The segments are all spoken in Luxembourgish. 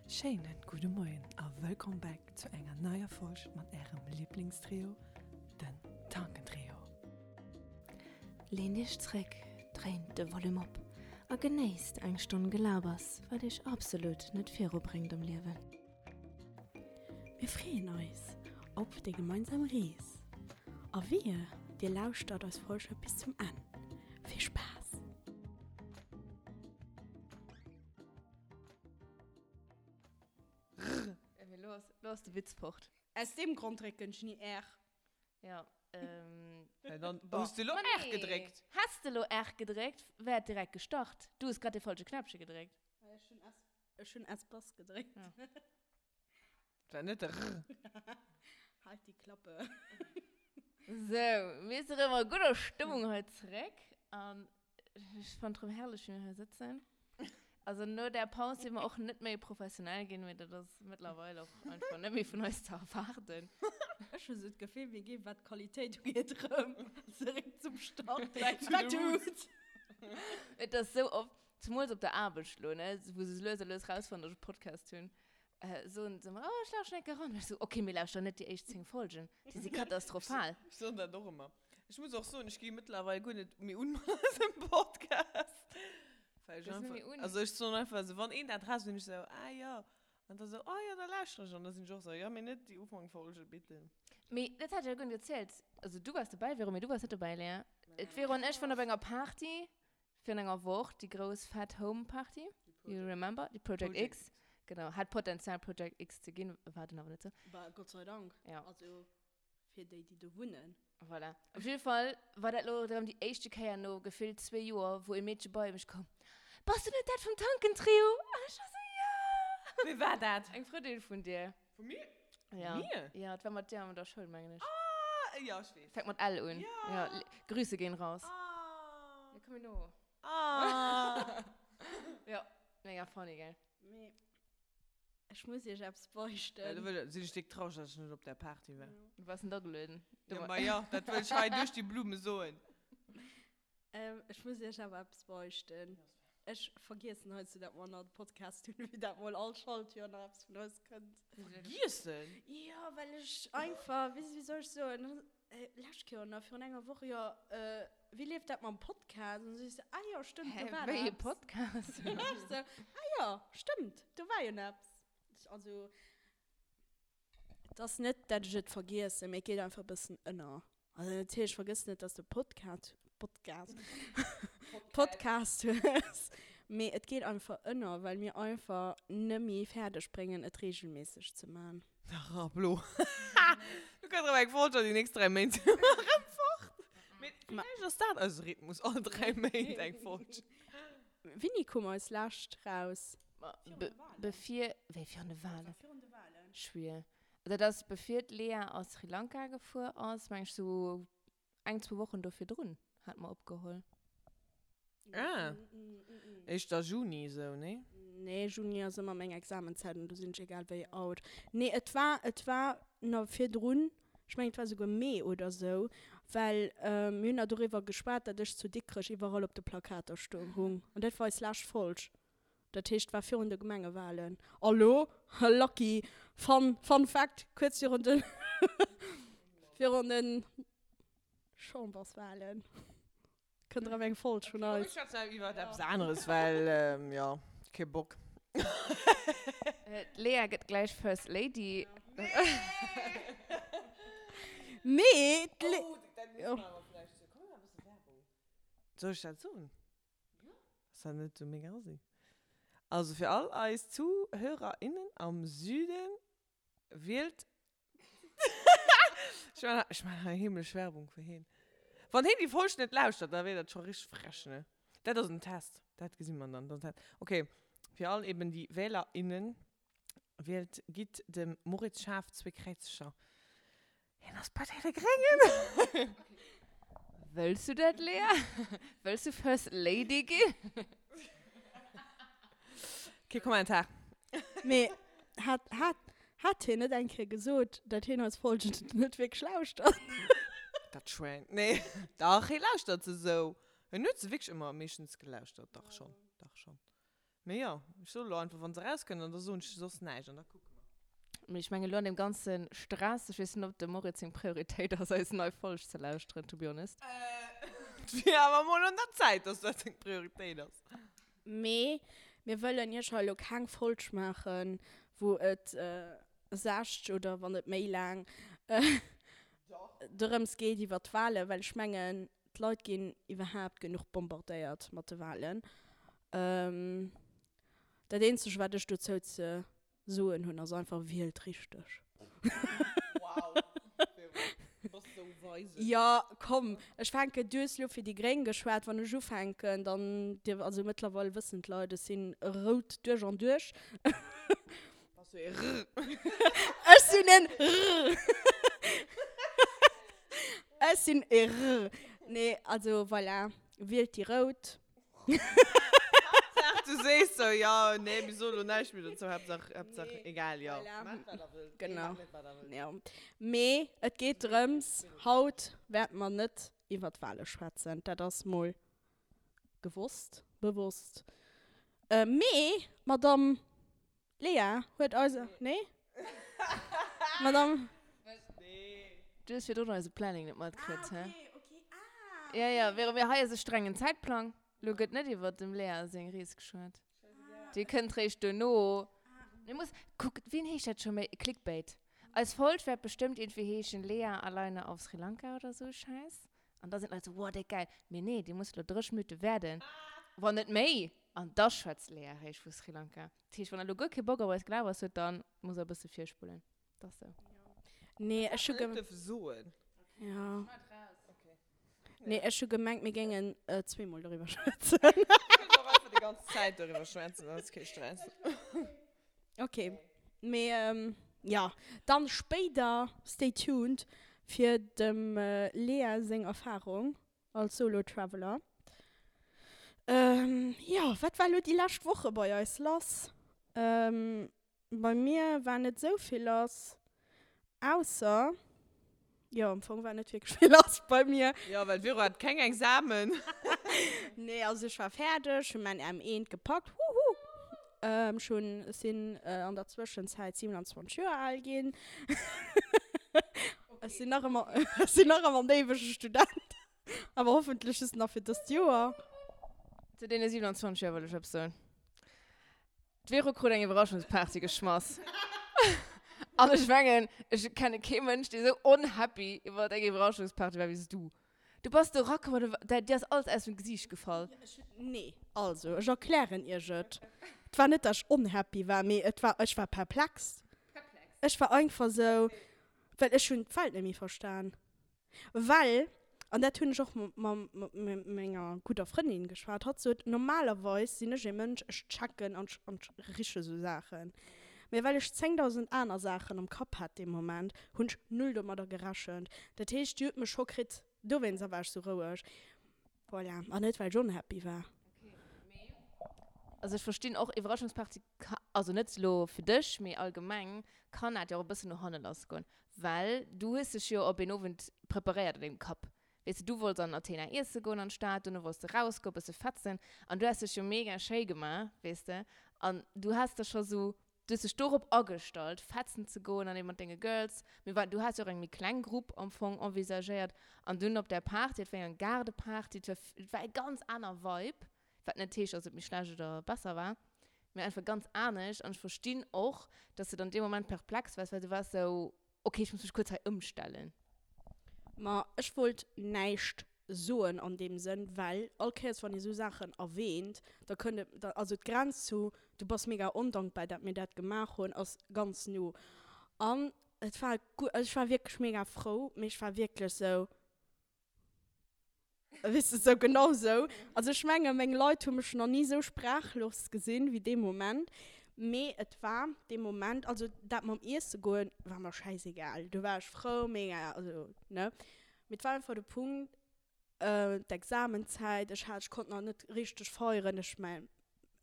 Schéinen gudde Moien a wëllkomm back zu enger neier Folg mat ärem Liblingstrio, den Tankentrio. Leent iech zréck, dréint de Volume op a genéisst eng Stonn Gelabers, wat iech absolut net virubréngt am Liewen. Mir freeën eis op déi gemeinsam Rees a wehe dir lauschtert eis Folge bis zum Enn. Vill Spaass! Rrr. Mee lo ass, lo ass de Witz fort. Aus deem Grond drécken ech ni R. Ja, ähm. Ja, dann hues de lo R gedréckt. Häss de lo R gedréckt, wär et direkt gestart. Du hues grad dee falsche Knäppche gedréckt. Ech hunn S, ech hunn Espace gedréckt. Ja. War net de Rrr. Halt die Klappe. Sou, mir si rëm a gudder Stëmmung hei zeréck. An ech fannen et rëm herrlech, wéi mir hei sëtzen. Also no där Paus si mer och net méi professionell ginn, mee dat ass mëttlerweil och einfach net méi vun eis ze erwaarden. Ech hu sou d'Gefill, mir ginn, wat d'Qualitéit ugeet, rëm zeréck zum Start. Back to the roots. Et ass sou oft, zemools op der Aarbecht lo, ne, wou se lues a lues rausfannen, datt ech e Podcast hunn, Soen se ëmmer, oh, ech lauschteren eng Kéier eran. Ech sou, ok, mee lauschter net déi éischt 10 Folgen, déi si katastrophal. Ech soen dat och ëmmer. Ech muss och soen, ech gi mëttlerweil guer net méi un mat eisem Podcast. Well ech einfach, also ech soen einfach esou, wann een dat raus, sinn ech esou, ah jo. An da sou, oh jo, da lauschtere ech. An da sinn ech och esou, jo, mee net déi Ufankfolge, bitte. Mee dat hat ech jo guer net erzielt. Also du waars dobäi, Véro, mee du waars net dobäi, Léa. D'Véro an ech waren op enger Party. Virun enger Woch, déi grouss fett Home Party, you remember? Déi Project X. Genau, hat Potenzial Project X ze ginn, war dann awer net sou. Bah, Gott sei Dank. Ja. Also fir déi, déi do wunnen. Voilà. Op jidde Fall war dat lo erëm déi éischte Kéier no gefillt zwee Joer, wou e Meedche bei mech koum, Bass du net dat vum Tankentrio? An ech war sou, Ja! Wie war dat? Eng Frëndin vun dir. Vu mir? Ja. Mir? Ja, et war mat dir an der Schoul, mengen ech. Ah, ja, ech weess. Fänkt mat L un. Ja. Ja, Grüße gehen raus. Ah. Ja, komm mir no. Ah. Ja, mega funny, gell? Mee ech muss iech eppes beichten. Ja, do wëll, sinn ech déck traureg, dass ech net op där Party war. Du waars net agelueden. Ja, ma ja, dat wëll ech hei duerch déi Blume soen. Ech muss iech awer eppes beichten. Ech vergiessen heiansdo, dat mer nach de Podcast hunn, wéi dat mol all Schaltjoer nach eppes vun eis kënnt. Vergiessen? Jo, well ech einfach, wéi wéi soll ech soen, lescht Kéier oder virun enger Woch, jo, wéi leeft dat mam Podcast? An da si ech sou, ah jo, stëmmt, do war Hä, wéi e eppes. Podcast? Ech sou, ah jo, stëmmt, do war jo nach eppes. Also. Et ass net, dat ech et vergiessen, mee et geet einfach e bëssen ënner. Also natierlech, ech vergëssen net, dass de Podcast, Podcast, Podcast hues, mee et geet einfach ënner, well mir einfach nëmmi fäerdeg bréngen, et regelméisseg ze man. Dach, Rablo. Du kënns erëm eng Folge an déi nächst 3 Méint si mer erëm fort. Mee villäicht ass dat eise Rhythmus, all 3 Méint eng Folge. Wéini koum eis lescht raus? Bevir, wéi virun de Wahlen? Schwier. Dat ass bevir d'Lea a Sri Lanka gefuer ass, meng ech, sou eng, zwou Wochen do virdrun hat mer opgeholl. Ah, éischter Juni sou, nee? Nee, Juni ass ëmmer meng Examenzäit an do sinn ech egal wéi out. Nee, et war, et war na virdrun, ech mengen et war souguer Mee oder sou, well mir hunn na doriwwer geschwat, dat ech zu Dikrech iwwerall op de Plakater stoung hung an dat war eis lescht Folg. Dat heescht, war virun de Gemengewahlen. A lo, lucky fun, fun fact, kuerz virun de, virun de Chamberswahlen kënnt erëm eng Folg vun Ech eis. schwätzen awer iwwert eppes aneres, well, jo, kee Bock. D'Lea gëtt gläich First Lady. Mee d'Lea. Oh, dat muss mer awer vläicht soen. Komm, mir maachen e bësse Werbung. Soll ech dat soen? Ass dat net sou mega assi? Also fir all eis ZuhörerInnen am Süden, wielt Ech man ech man hei heemlech Werbung fir heen. Wann heen déi Folg net lauschtert, da wier dat scho richteg frech, ne? Dat ass en Test, dat gesi mer dann. Dat ass en Test. Ok, fir all eben déi WählerInnen, wielt, gitt dem Moritz Schaaf zwee Kräizercher. Hien ass bei deene Gréngen! Wëlls du dat, Lea? Wëlls du First Lady ginn? Kee Kommentar. Mee hat, hat, hat hien net eng Kéier gesot, dat hien eis Folgen net wierklech lauschtert? Dat Schwäin. Nee, dach, hie lauschtert se esou. Hien huet se wierklech ëmmer meeschtens gelauschtert. Dach schonn, dach schonn. Mee jo, ech soe lo einfach, wa se erauskënnt, an da soen ech soss näischt an da kucke mer. Mee ech mengen, elo an deem ganze Stress, ech weess net, ob dem Moritz seng Prioritéit ass, eis nei Folg ze lauschteren, to be honest. Et wier awer mol un der Zäit, dass dat seng Prioritéit ass. Mee mir wëllen iech hei elo keng Folg maachen, wou et 60 oder wann net méi laang dorëms geet iwwer d'Wahlen, well ech mengen, D'Leit ginn iwwerhaapt genuch bombardéiert mat de Wahlen. Dat eenzegt wat ech dozou ze soen hunn ass einfach, wielt richteg. Wow, du bass sou weise. Jo, komm, ech fänken, du hues lo fir déi Gréng geschwat, wann ech ufänken, dann dierf, also mëttlerweil wëssen d'Leit, ech sinn rout duerch an duerch. Bass du ee Rr? Ech sinn en Rr. Ech sinn e Rr. Nee, also voilà, wielt déi Rout. Haaptsaach du sees sou, jo, nee, mir soe lo näischt méi dozou, Haaptsaach, Haaptsaach, egal, jo. Voilà. Maacht wat der wëllt. Genau. Nee, maacht net wat der wëllt. Jo. Mee et geet drëms, haut wäerte mer net iwwer d'Wale schwätzen, dat ass mol gewosst, bewosst. Mee d'Madame Lea huet eis, nee? Madame. Du hues virdrun eise Planning net matkritt, hä? Ja, ja, Vero, mir hei ass e strengen Zäitplang. Lo gëtt net iwwert dem Lea seng Rees geschwat. Déi kënnt réischt duerno. Mir muss, kuck, wien heescht dat scho méi? Clickbait. Eis Folg wäert bestëmmt iergendwéi heeschen, Lea alleine auf Sri Lanka oder sou e Schäiss. An da sinn d'Leit sou, wow, déck gäil. Mee nee, déi muss lo 30 Minutte waarden, wann net méi. An da schwätzt d'Lea réischt vu Sri Lanka. Dat heescht, wann der lo guer kee Bock op eist Gelabers hutt, dann musst der e bësse virspullen. Dat ass sou. Nee, ech hu Net dierfe soen. Ja. Nee, ech hu gemengt, mir géingen zweemol doriwwer schwätzen. Mir kënnen och einfach déi ganz Zäit doriwwer schwätzen, dat ass kee Stress. Ok, mee jo, dann spéider, stay tuned fir dem Lea seng Erfahrung als Solo Traveler. Jo, wat war lo déi lescht Woche bei eis lass? Bei mir war net sou vill lass, ausser, jo am Fong war net wierklech vill lass bei mir. Jo, well d'Vero hat keng Examen. Nee, also ech war fäerdeg, hunn mäin M1 gepackt, huhu. Ech hunn, ech sinn an der Zwëschenzäit 27 Joer al ginn. Ech sinn nach ëmmer, ech sinn nach ëmmer en éiwege Student, awer hoffentlech just nach fir dëst Joer. Zu deene 27 Joer wëll ech eppes soen. D'Vero krut eng Iwwerraschungsparty geschmass. An ech mengen, ech kenne kee Mënsch, dee sou unhappy iwwer eng Iwwerraschungsparty war wéi s du. Du bass do erakomm an du, dir ass alles aus dem Gesiicht gefall. Nee, also ech erklären iech et. Et war net, dass ech unhappy war, mee et war, ech war perplex. Ech war einfach sou, well ech hunn d'Welt net méi verstan. Well, an dat hunn ech och mat menger gudder Frëndin geschwat, hatt sot, normalerweis sinn ech ee Mënsch, ech checken an ech riche sou Saachen. Mee well ech 10.000 aner Saachen am Kapp hat dee Moment, hunn ech null domadder gerechent. Dat heescht, déi huet mech scho kritt. Dowéinster war ech sou roueg. Voilà. An net, well ech unhappy war. Also ech verstinn och, Iwwerraschungsparty ka, also net elo fir dech, mee allgemeng kann dat jo och e bëssen no hanne lass goen. Well du hues dech jo op een Owend preparéiert an dengem Kapp. Weess de, du wollts an Athena iesse goen an d'Stad, dono wollts de rausgoen, e bësse fetzen an du has dech jo mega schéi gemaach, weess de. An du has der scho sou, du hues dech dorop agestallt, fetzen ze goen an eben mat denge Girls. Mir war, du has jo och eng méi kleng Grupp am Fong envisagéiert. An dunn op där Party, et war jo eng Gaardeparty, et war, et war e ganz aner Vibe. Wat net heescht, dass et méi schlecht oder besser war, mee einfach ganz anescht. An ech verstinn och, dass de dann dee Moment perplex waars, well du waars sou, okay, ech muss mech kuerz hei ëmstellen. Ma ech wollt näischt soen an deem Sënn, well all Kéiers wann ee sou Saachen erwähnt, da kënnt et, da, also d'Grenz zu du bass mega ondankbar, dat mir dat gemaach hunn, ass ganz no. An et war guer, also ech war wierklech mega frou, mee ech war wierklech sou, Weess de, sou genau sou. Also ech menge meng Leit hu mech nach ni sou sprachlos gesinn wéi dee Moment. Mee et war dee Moment, also dat mam Iesse goen war mer schäisegal, do war ech frou, mega, also ne. Mee et war einfach de Punkt, d'Examenzäit, ech hat, ech konnt nach net richteg feieren, ech mäin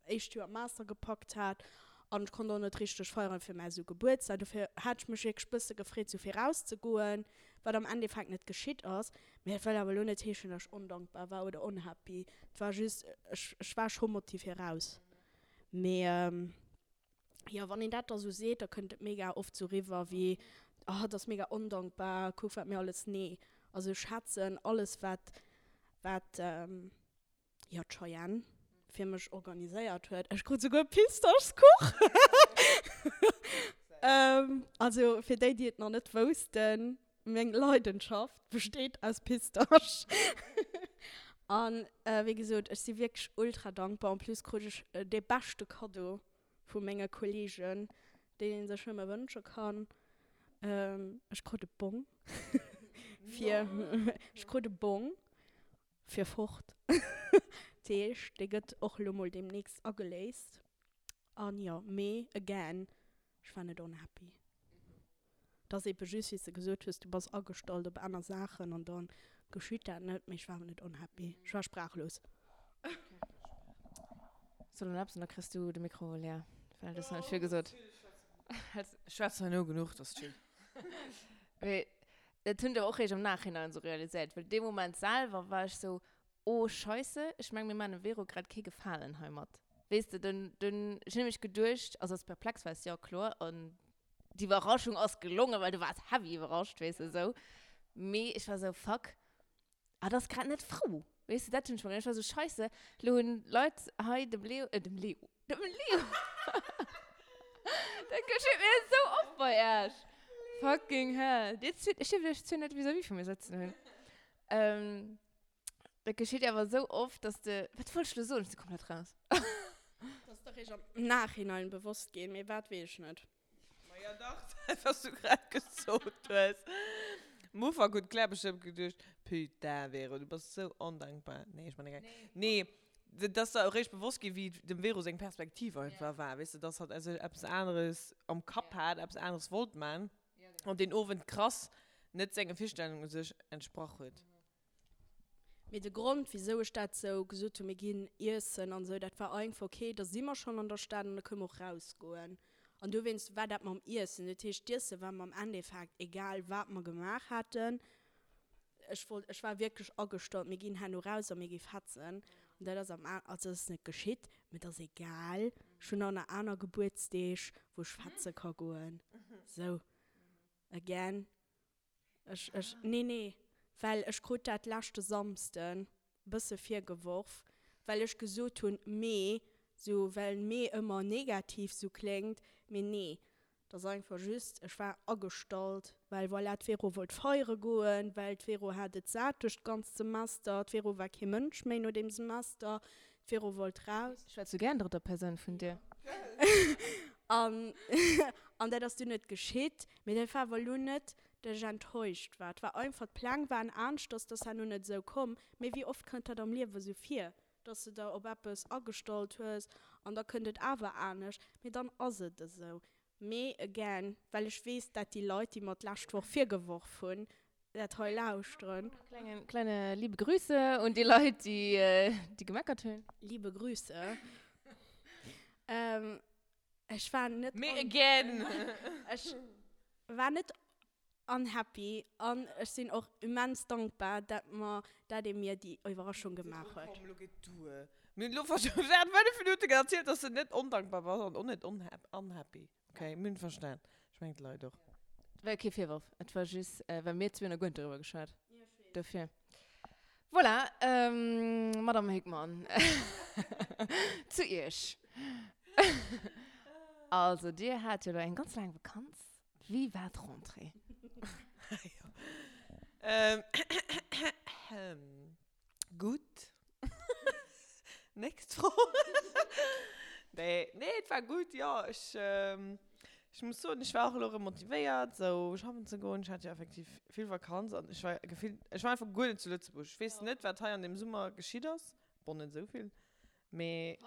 éischt Joer Master gepackt hat an ech konnt och net richteg feieren fir mäi sou Gebuertsdag. Dofir hat ech mech wierklech bësse gefreet sou virauszegoen, wat am Endeffekt net geschitt ass. Mee dat wëll awer elo net heeschen, dass ech ondankbar war oder unhappy. Et war just, ech ech war scho motivé raus. Mee jo, wann een dat da sou seet, da kënnt et mega oft sou riwwer wéi, oh, dat ass mega ondankbar, kuck wat mir alles, nee. Also ech schätzen alles wat, wat jo d'Cheyenne fir mech organiséiert huet. Ech krut souguer Pistaschskuch! Also fir déi, déi et nach net woussten, Meng Leidenschaft besteet aus Pistasch. An wéi gesot, ech si wierklech ultra dankbar. En plus krut ech dee beschte Kaddo vu menge Kollegen, deen ee sech nëmme wënsche kann. Ech krut e Bong fir, ech krut e Bong fir fort. Dat heescht, dee gëtt och elo mol deemnächst ageléist. An jo, mee again, ech war net unhappy. Et ass ebe just, wéi s de gesot hues, du bass agestallt op aner Saachen an da geschitt dat net. Mee ech war awer net unhappy. Ech war sprachlos. Soll en eppes an da kriss du de Mikro, Lea, well du hues net vill gesot. Ech schwätzen herno genuch, dat ass chill. Mee dat hunn ech awer och eréischt am Nachhinein esou realiséiert, well dee Moment selwer war ech sou, Oh Scheisse, ech meng mir maan dem Vero grad kee Gefalen heimat. Weess de, dunn, dunn, ech hun nämlech geduecht, also als perplex waars jo, kloer, an d'Iwwerraschung ass gelongen, well du waars heavy iwwerrascht, weess de, sou. Mee ech war sou, fuck, hatt ass grad net frou, weess de, dat hun ech mer geduecht. Ech war sou, Scheisse, lo hun d'Leit hei dem Leo, äh, dem Leo, dem Leo, dat geschitt mir sou oft bei Äech, fucking hell, dir zwee, ech dierf iech zwee net vis-à-vis vu mir sëtzen hunn, ähm. Dat geschitt awer esou oft, dass de. Wat wollt ech lo soen? Ech si komplett raus. Dat ass der réischt am Nachhinein bewosst ginn, mee wat, weess ech net. Maja dach, dat wat s du grad gesot hues. Am Ufank huet d'Claire bestëmmt geduecht, Putain Vero, du bass esou ondankbar. Nee, ech man de Geck. Nee, dat ass der eréischt bewosst ginn, wéi dem Vero seng Perspektiv einfach war, weess de, dass hatt eppes aneres am Kapp hat, eppes aneres wollt man an deen Owend krass net senge Virstellungen u sech entsprach huet. Mee de Grond, wisou ech dat sou gesot hunn, mir ginn iessen an esou, dat war einfach, okay, da si mer schonn an der Stad an da kënne mer och rausgoen. An dowéinst war dat mam Iessen. Dat heescht, d'Iesse war mer am Endeffekt egal, wat mer gemaach haten. Ech wollt, ech war wierklech agestallt, mir ginn herno raus a mir gi fetzen. An dat ass am, also dat ass net geschitt, mee et ass egal. Ech hunn och nach aner Gebuertsdeeg, wou ech fetze ka goen. Sou, again. Ech, ech, nee, nee, well ech krut dat leschte Samsden bësse virgeworf, well ech gesot hunn, mee, sou, well mee ëmmer negativ sou kléngt, mee nee, et ass einfach just, ech war agestallt, well voilà, d'Vero wollt feiere goen, well d'Vero hat et sat duerch d'ganzt Semester, d'Vero war kee Mënsch méi no deem Semester, d'Vero wollt raus. Ech schwätz sou gär an drëtter Persoun vun dir. An, an dat ass dunn net geschitt. Mee dat war awer elo net, dat ech enttäuscht war. Et war einfach, d'Pläng waren aneschters, dat ass herno net esou komm. Mee wéi oft kënnt dat am Liewe sou vir, dass de der op eppes agestallt hues an da kënnt et awer anescht. Mee dann ass et esou. Mee again, well ech weess, dat déi Leit, déi mer d'lescht Woch virgeworf hunn, dat hei lauschteren. Kleine, kleine liebe Grüße un déi Leit, déi, déi gemeckert hunn. Liebe Grüße. Ech war net. Mee again! Ech war net unhappy an ech sinn och immens dankbar, dat mer, dat ee mir déi Iwwerraschung gemaach huet. Komm, lo geet duer. Mir hunn elo während 5 Minuten erzielt, dass de net ondankbar bass an och net unhappy. Ok, mir hunn verstan. Ech mengen d'Leit och. Et war jo kee Virworf, et war just, well mir zwee hunn nach guer net doriwwer geschwat. Dofir. Voilà, Madame Hickmann, zu Iech. Also, Dir hat jo elo eng ganz laang Vakanz. Wéi war d'Rentrée? Gutt. Nächst Fro. Nee, nee, et war gutt, jo. Ech, ech muss soen, ech war och elo erëm motivéiert, sou schaffen ze goen. Ech hat jo effektiv vill Vakanz an ech war gefillt, ech war einfach guer net zu Lëtzebuerg. Ech weess net, wat hei an deem Summer geschitt ass. Bon, net esou vill, mee,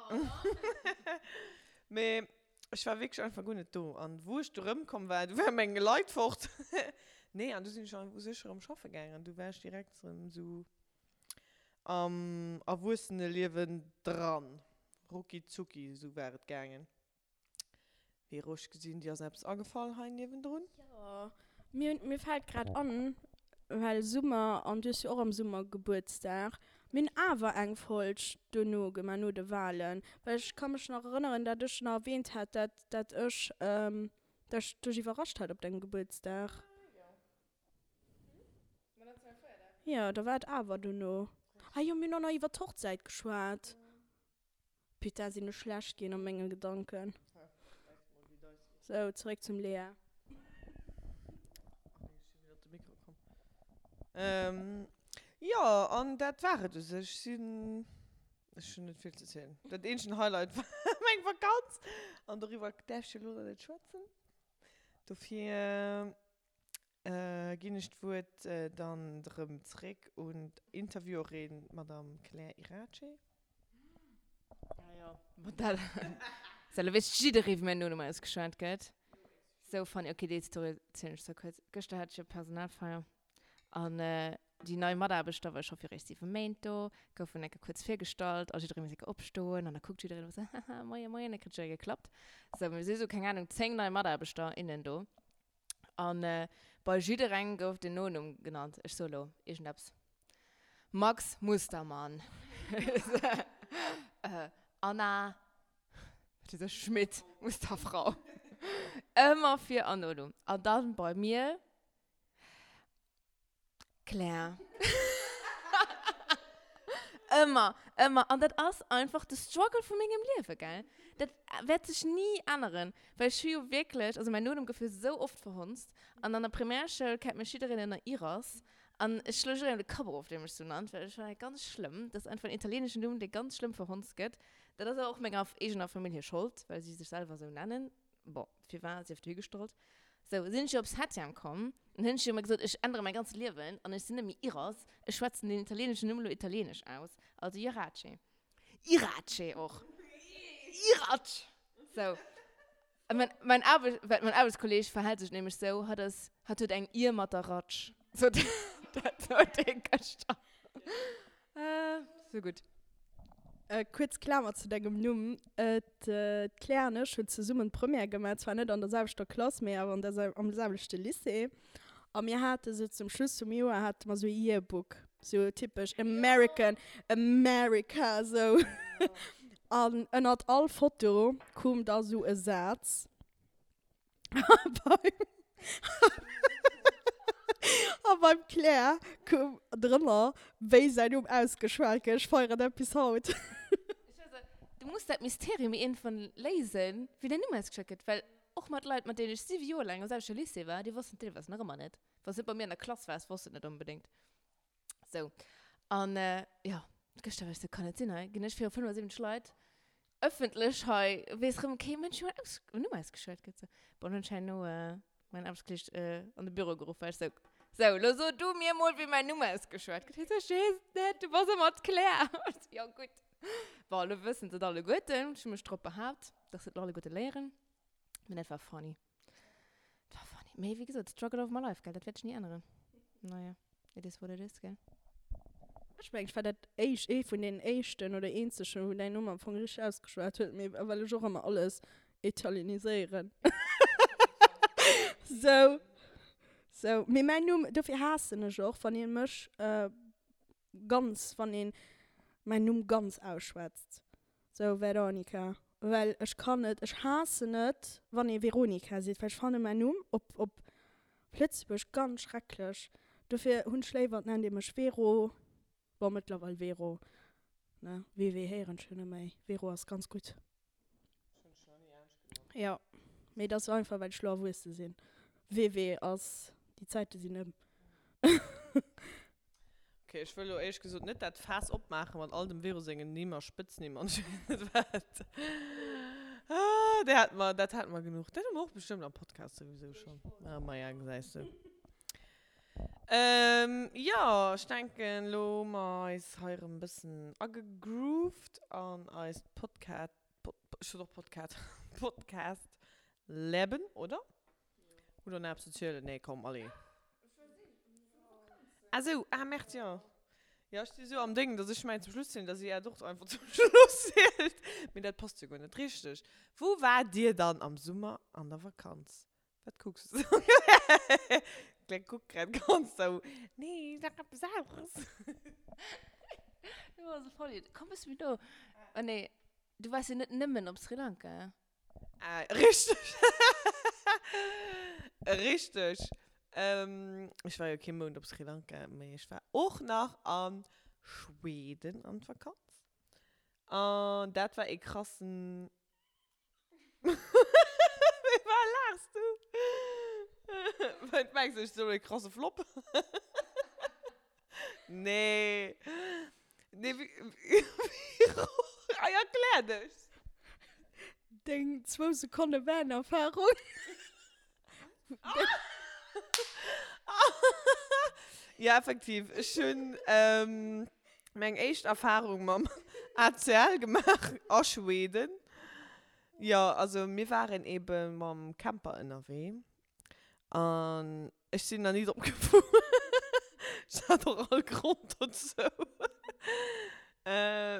mee ech war wierklech einfach guer net do. An wou ech du erëmkomm war, du ware meng Leit fort. Nee, an du sinn ech u sech erëm schaffe gaangen an du war ech direkt erëm sou am Erwuesseneliewen dran. Rucki zucki, esou war et gaangen. Vero, ech gesinn, dir ass eppes agefall hei niewendrun. Jo, mir, mir fält grad an, well Summer, an du hues jo och am Summer Gebuertsdag. Mir hunn awer eng Folg duerno gemaach, no de Wahlen. Well ech ka mech nach erënneren, dat ech nach erwähnt hat, dat, dat ech, dat ech dech iwwerrascht hat op dengem Gebuertsdag. Jo, da war et awer duerno. Ah jo, mir hunn och nach iwwer d'Hochzäit geschwat. Putain, sinn ech schlecht ginn a menge Gedanken. Sou, zeréck zum Lea. Jo, an dat war et u sech. Sinn, ech hunn net vill ze zielen. Dat eenzegen Highlight war meng Vakanz an doriwwer däerf ech jo elo nach net schwätzen. Dofir Ginn ech d'Wuert dann erëm zréck un d'Interviewerin, d'Madame Claire Irace. Ah jo, ma dat ass elo weess jidderee wéi mäin Nonumm ausgeschwat gëtt. Sou funny. Ok, déi Story erzielen ech zwar kuerz. Gëschter hat ech jo Personalfeier an déi nei Mataarbechter, well ech schaffe jo eréischt 7 Méint do, goufen enke kuerz virgestallt a jidderee muss enke opstoen an da kuckt jiddereen ëmmer sou, haha, moie moien, da kritt jidderee geklappt. Sou, mir si sou, keng Ahnung, 10 nei Mataarbechter, innen do. An bei jidderengem gouf den Nonumm genannt. Ech soe lo iergendeppes, Max Mustermann, Anna, wat weess ech, Schmidt, Musterfrau. Ëmmer Vir an Nonumm. An dann bei mir, Claire. Ëmmer, ëmmer. An dat ass einfach de Struggle vu mengem Liewe, gell? Dat wäert sech ni änneren, well ech hu jo wierklech, also mäin Nonumm gouf jo sou oft verhonzt. An an der Primärschoul kennt mech jiddereen ënner Iras. An ech schloe jidderengem de Kapp erof, dee mech sou nannt, well ech fannen dat ganz schlëmm. Dat ass einfach en italieeneschen Numm, dee ganz schlëmm verhonzt gëtt. Dat ass awer och menger eegener Famill hir Schold, well si sech selwer sou nennen. Bon, firwat sief dohigestallt. Sou, sinn ech jo op Septième komm, an hunn ech jo ëmmer gesot, ech ännere mäi ganzt Liewen an ech sinn net méi Iras, ech schwätzen den italieeneschen Numm elo italieenesch aus, also Irace. Irace och. Irac! Sou. A mäin, mäin Aarbecht, well mäin Aarbechtskolleeg verhält sech nämlech sou, hatt ass, hatt huet eng Ier mat der Ratsch. Sot, dat sot hie gëschter. Sou gutt. Kuerz Klamer zu dengem Numm, D'Claire an ech hunn zesummen d'Première gemaach, zwar net an der selwechter Klass, mee awer an der am selwechte Lycée. A mir hate sou zum Schluss vum Joer hate mer sou e Yearbook, sou typesch American, America sou. An ënnert all Foto koum da sou e Saz. A beim Claire koum drënner, wéi säin Numm ausgeschwat gëtt. Ech feieren dat bis haut. Du muss dat Mysterium iergendwann léisen, wéi däin Numm ausgeschwat gëtt. Well och mat Leit, mat deenen ech 7 Joer laang am selwechte Lycée war, déi wossten et deelweis nach ëmmer net. Wann s de net bei mir an der Klass waars, wosst de et net onbedéngt. Sou. An jo, gëschter war ech sou, kann net sinn, hei ginn ech viru 75 Leit ëffentlech hei, weess rëm kee Mënsch, wéi mäin Aus-, Numm ausgeschwat gëtt. Sou. Bon, hunn ech herno mäin Aarbechtskolleeg an de Büro geruff, war ech sou, Sou, lo so du mir mol, wéi mäin Numm ausgeschwat gëtt. Hie sou, ech weess et net, du bass ëmmer d'Claire. Ech sou, jo gutt. Bon, lo wëssen se et alleguerten. Ech hu mech drop behaapt, dass se et lo alleguerte léieren. Mee dat war funny. Dat war funny. Mee wéi gesot, struggle of my life, gell, dat wäert ech ni änneren. Naja, it is what it is, gell. Ech mengen, ech war dat éischt, ee vun den éischten oder eenzegen, wou däin Numm am Fong richteg ausgeschwat huet, mee well ech och ëmmer alles italieniséieren. Sou, sou. Mee mäin Numm, dofir haassen ech och, wann ee mech ganz, wann een mäin Numm ganz ausschwätzt. Sou, Veronica. Well ech kann net, ech haassen et, wann ee Veronica seet, well ech fanne mäin Numm op, op Lëtzebuerg ganz schrecklech. Dofir hunn ech léiwer, et nennt ee mech Vero. Bon, mëttlerweil Vero, ne? WW héieren ech jo net méi. Vero ass ganz gutt. Jo, mee et ass einfach, well ech lo erwuesse sinn. WW ass, déi Zäite sinn ëm. Ok, ech wëll lo éierlech gesot net dat Faass opmaachen mat all dem Vero sengen Nimm a Spëtznimm an ech weess net wat. Ah, dat hate mer, dat hate mer genuch. Dat hu mer och bestëmmt am Podcast souwisou schonn. Ah, maja, gesäis de. Jo, ech denken, lo hu mer eis hei erëm e bëssen agegrooved an eist Podcat, Pod, ech sot och Podcat, Podcast-Leben, oder? Hutt der nach eppes ze zielen? Nee, komm, allez. Ah sou, ah merde, jo. Jo, ech si sou am Déng, dass ech mengen zum Schluss zielen, dass si Äert och einfach zum Schluss zielt. Mee dat passt jo guer net richteg. Wou waart Dir dann am Summer an der Vakanz? Wat kucks du sou? D'Claire kuckt grad ganz sou, nee, sag eppes aneres. Du bass e Vollidiot. Komm bësse méi no. Oh nee, du waars jo net nëmmen op Sri Lanka. Ah, richteg. Richteg. Ähm, ech war jo kee Mount op Sri Lanka, mee ech war och nach a Schweden an d'Vakanz. An dat war ee krassen. Wéi war laachs du? Wat mengs du, ech soen e krasse Flop? Nee. Nee, wéi, wéi, erklär dech! Deng zwou Sekonne Van-Erfahrung. Ja, effektiv. Ech hunn meng éischt Erfahrung mam ACL gemaach a Schweden. Jo, also mir waren ebe mam Camper ënnerwee an ech sinn nach ni drop gefuer. Ech hat och all Grond dozou.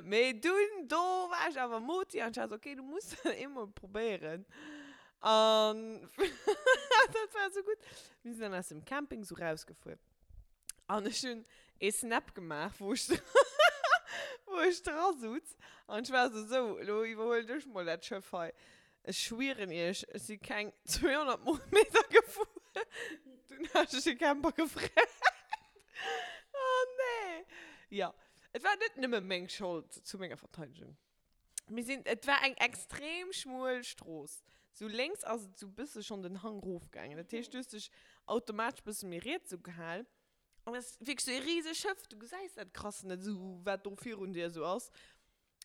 Mee dunn, do war ech awer moti an ech war esou, okay, du muss dat eemol probéieren. An dat war esou gutt. Mir sinn dann aus dem Camping esou rausgefuer an ech hunn ee Snap gemaach, wou ech wou ech dra sutz an ech war esou, sou, elo iwwerhuelen ech mol dat Schëff hei. Ech schwieren iech, ech si keng 200 Meter gefuer, dunn hat ech de Camper gefreckt. Oh nee! Jo, et war net nëmme meng Schold, zu menger Verteidegung. Mir sinn, et war eng extrem schmuel Strooss. Sou lénks ass et sou bësse schonn den Hang rofgaangen. Dat heescht, du hues dech automatesch bësse méi riets sou gehal. An et ass wierklech sou ee riseg Schëff, du gesäis dat krass net sou, wat do virun dir sou ass.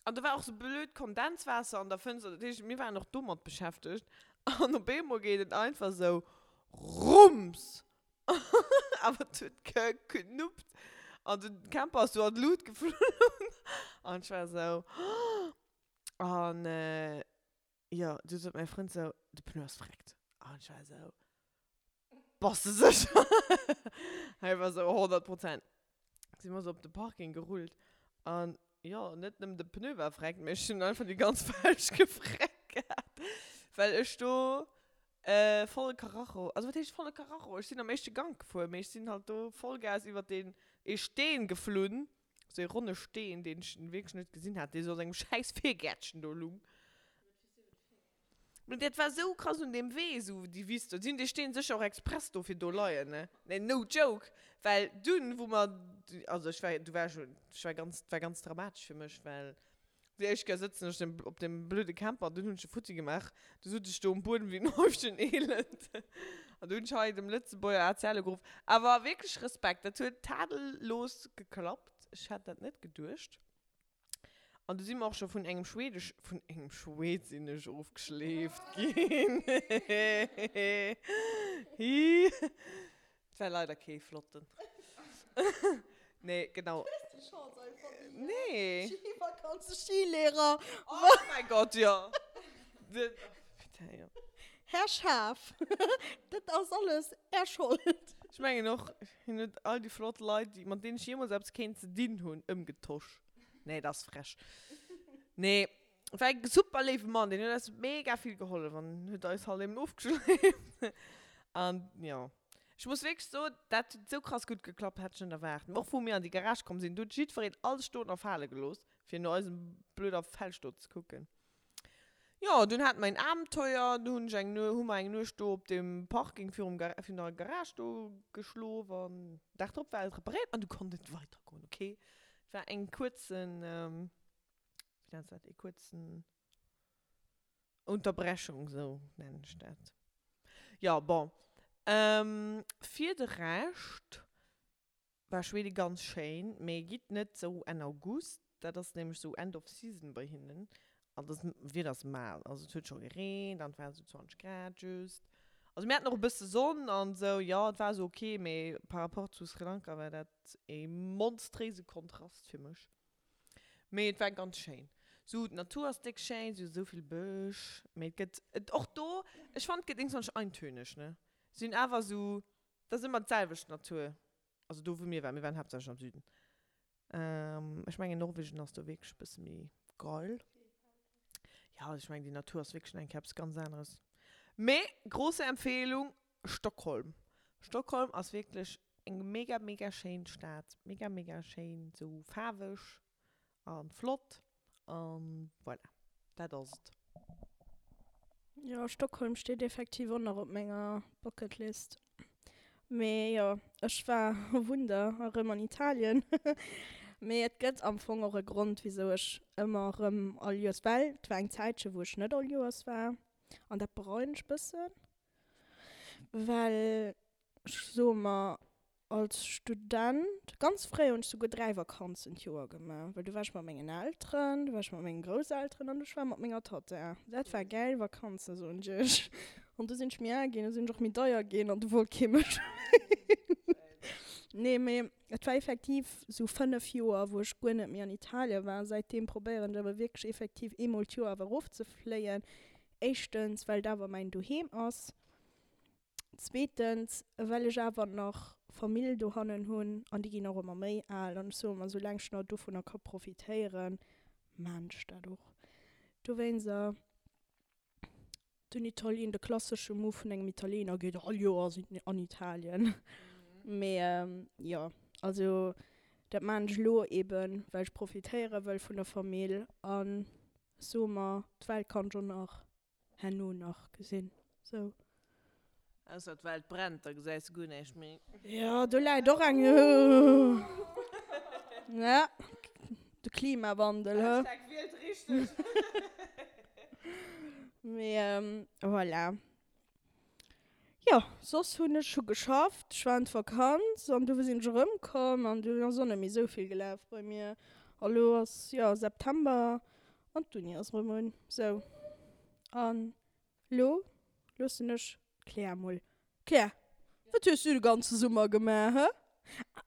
An do war och sou blöd Kondenswaasser an der Fënster, dat heescht, mir waren och domat beschäftegt. An op eemol geet et einfach sou Rums! Awer et huet geknuppt an den Camper ass sou an d'Lut geflunn. An ech war sou, An jo, du sot mäi Frënd sou, de Pneu ass vreckt. An ech war sou, Bass de sécher? Hei war sou 100 Prozent. Si mer sou op de Parking gerullt an jo, net nëmmen de Pneu war vreckt, mee ech hunn einfach déi ganz Felg gefreckt gehat, well ech do volle Karacho, also wat heescht volle Karacho, ech sinn am éischte Gank gefuer, mee ech sinn halt do Vollgas iwwert deen ee Steen geflunn, sou ee ronne Steen, deen ech wierklech net gesinn hat, dee sou an engem schäiss Virgäertchen do lung. Mee dat war sou krass un deem Wee, sou déi Wiss do. Si hunn dee Steen sécher och express do fir do leien, ne? Nee, no joke! Well dunn, wou mer, also ech war, du war ech, ech war ganz, war ganz dramatesch fir mech, well déi éischt Kéier sëtzen ech op deem blöde Camper an dunn hunn ech e futti gemaach. Du sot ech do um Buedem wéi en Häufchen Elend. An du hunn ech hei dem Lëtzebuerger ACL ugeruff. Awer wierklech Respekt, dat huet tadellos geklappt. Ech hätt dat net geduecht. An du si mer och scho vun engem schwedesch, vun engem Schwed sinn ech ofgeschleeft ginn. Hi. Et war leider kee flotten. Nee, genau. Du hues déi Chance einfach ni, ne? Nee. Skivakanze, Skilehrer. Oh mäi Gott, jo. Putain, jo. Här Schaaf, dat ass alles Är Schold. Ech mengen och, hien huet all déi flott Leit, déi, mat deenen ech jeemools eppes kéint ze dinn hunn, ëmgetosch. Nee, dat ass frech. Nee, war e super léiwe Mann, deen huet eis mega vill gehollef an huet eis halt eben ofgeschleeft. An jo, ech muss wierklech soen, dat huet esou krass gutt geklappt, hätt ech net erwaart. Och wou mir an déi Garage komm sinn, do huet jiddwereen alles stoen a fale gelooss, fir no eisem blöder Felg do ze kucken. Jo, dunn haten mer een Abenteuer, du hunn ech eng Nuecht, hu mer eng Nuecht do op dem Parking virum Gar virun der Garage do geschlof an Dag drop war et reparéiert an du konnt et weider goen, ok. Et war eng kuerzen, wéi nenns de dat, ee kuerzen Unterbrechung, sou nennen ech dat. Jo, bon, fir de Rescht War Schweden ganz schéin, mee gitt net sou Enn August, dat ass nämlech sou End of Season bei hinnen an das Wieder ass mal, also et huet scho gereent an et waren sou 20 Grad just, also mir haten och e bësse Sonn an sou, jo et war sou ok, mee par rapport zu Sri Lanka war dat ee monstréise Kontrast fir mech, mee et war ganz schéin, sou d'Natur ass déck schéin, sou sou vill Bësch, mee et gëtt et och do, ech fannen et gëtt iergendwann eintöneg ne, sinn awer sou Dat ass ëmmer d'selwecht Natur. Also do wou mir waren, mir waren haaptsächlech am Süden. Ech mengen Norwegen ass do wierklech e bësse méi geil. Ja, also ech mengen déi Natur ass wierklech nach eng Kéier eppes ganz aneres. Mee grosse Empfehlung, Stockholm. Stockholm ass wierklech eng mega mega schéin Stad. Mega mega schéin, sou faarweg. A flott. An voilà, dat ass et. Jo, Stockholm steet effektiv och nach op menger Bucket List. Mee jo, ech war, oh Wunder, erëm an Italien. Mee et gëtt am Fong och e Grond, wisou ech ëmmer erëm all Joers, well et war eng Zäitche wou ech net all Joers war an dat bereuen ech bëssen, well ech soe mer, Als Student, ganz fréi hunn ech souguer 3 Vakanzen d'Joer gemaach, well du war ech mat mengen Elteren, du war ech mat mengen Grousselteren an ech war mat menger Tatta. Dat war gäil Vakanzen, soen ech iech. An du sinn ech méi al ginn, du sinn ech och méi deier ginn an du wollt kee mech méi. Nee, mee et war effektiv sou 5 Joer, wou ech guer net méi an Italien war. Säitdeem probéieren ech awer wierklech effektiv eemol d'Joer awer erofzefléien. Éischtens, well et awer mäin Doheem ass. Zweetens, well ech awer nach Famill dohannen hunn an déi ginn och ëmmer méi al an ech soe mer, soulaang ech nach dovunner ka profitéieren, maan ech dat och. Dowéinster den Italien, de klassesche Move vun engem Italiener geet all Joers an Italien. Mee jo, also dat maan ech elo eben, well ech profitéiere wëll vun der Famill an ech soe mer, d'Welt kann ech och nach herno nach gesinn sou. Ausser d'Welt brennt, da gesäis de guer näischt méi. Jo, do läit och eng, ja, de Klimawandel, hë. Hashtag wielt richteg. Mee voilà. Jo, soss hunn ech hu geschafft, ech war an d'Vakanz an du sinn ech erëmkomm an dunn ass och net méi esou vill gelaf bei mir. A lo ass, jo, September an d'Uni ass erëm un. Sou, an lo loossen ech d'Claire mol. Claire, wat hues du de ganze Summer gemaach, hë?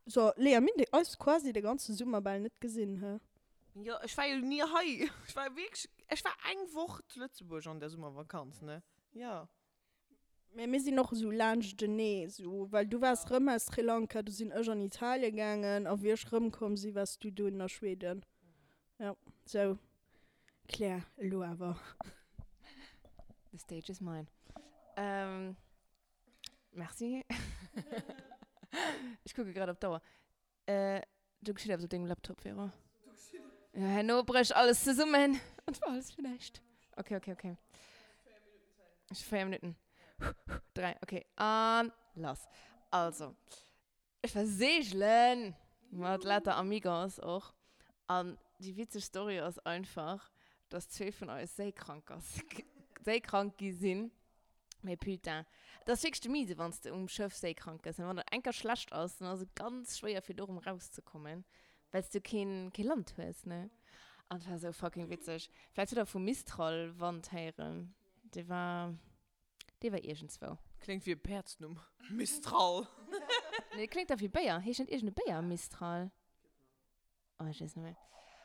So, Léa, mir hunn eis quasi de ganze Summer bal net gesinn, hë? Jo, ech war jo ni hei. Ech war wierklech, ech war eng Woch zu Lëtzebuerg an der Summervakanz, ne? Jo. Mä mir sinn och esou laanschtenee, esou, well du waars rëm aus Sri Lanka, du sinn ech an Italien gaangen a wéi ech rëmkomm si waars du dunn a Schweden. Jo, sou Claire, elo awer. The stage is mine. Merci. Ech kucke grad op d'Auer. Do geschitt eppes op dengem Laptop, Vero. Ja, herno brécht alles zesummen und war alles fir näischt. Okay, okay, okay. Ech hu 4 Minutten. 3, okay. An lass. Also, ech war seegelen mat lauter Amigos och. An déi witzeg Story ass einfach, dass zwee vun eis séikrank ass, séikrank gi sinn. Mee putain, et ass wierklech de Miese, wann s de um Schëff séikrank gëss. Wann der eng Kéier schlecht ass, dann ass et ganz schwéier, fir do erëm rauszekommen, well s du keen, kee Land hues, ne? An et war esou fucking witzeg. Vläicht hutt der vum Mistral-Wand héieren. Dee war, dee war iergendzwou. Kléngt wéi e Päerdsnumm, Mistral. Nee, kléngt da wéi Béier. Heescht net iergend e Béier Mistral? Oh, ech weess net méi.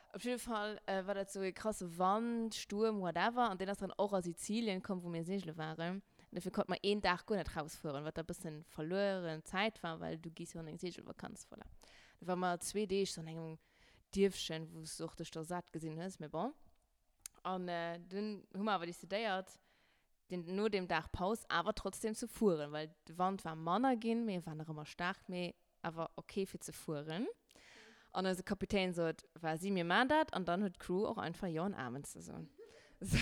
Op jidde Fall war dat sou e krasse Wand, Stuerm, whatever. An deen ass dann och a Sizilien komm, wou mir seegele waren. An dofir konnte mer een Dag guer net rausfueren, wat da bëssen verlueren Zäit war, well du gees jo an eng Seegelvakanz, voilà. Da ware mer zwee Deeg sou an engem Dierfchen, wou s du och dech da sat gesinn hues, mee bon. An dunn hu mer awer decidéiert, den, no deem Dag Paus awer trotzdem ze fueren, well de Wand war manner ginn, mee e war nach ëmmer staark, mee awer ok fir ze fueren. An eise Kapitän sot, Vas-y, mir maan dat. An dann huet d'Crew och einfach Jo an Amen ze soen. Sou.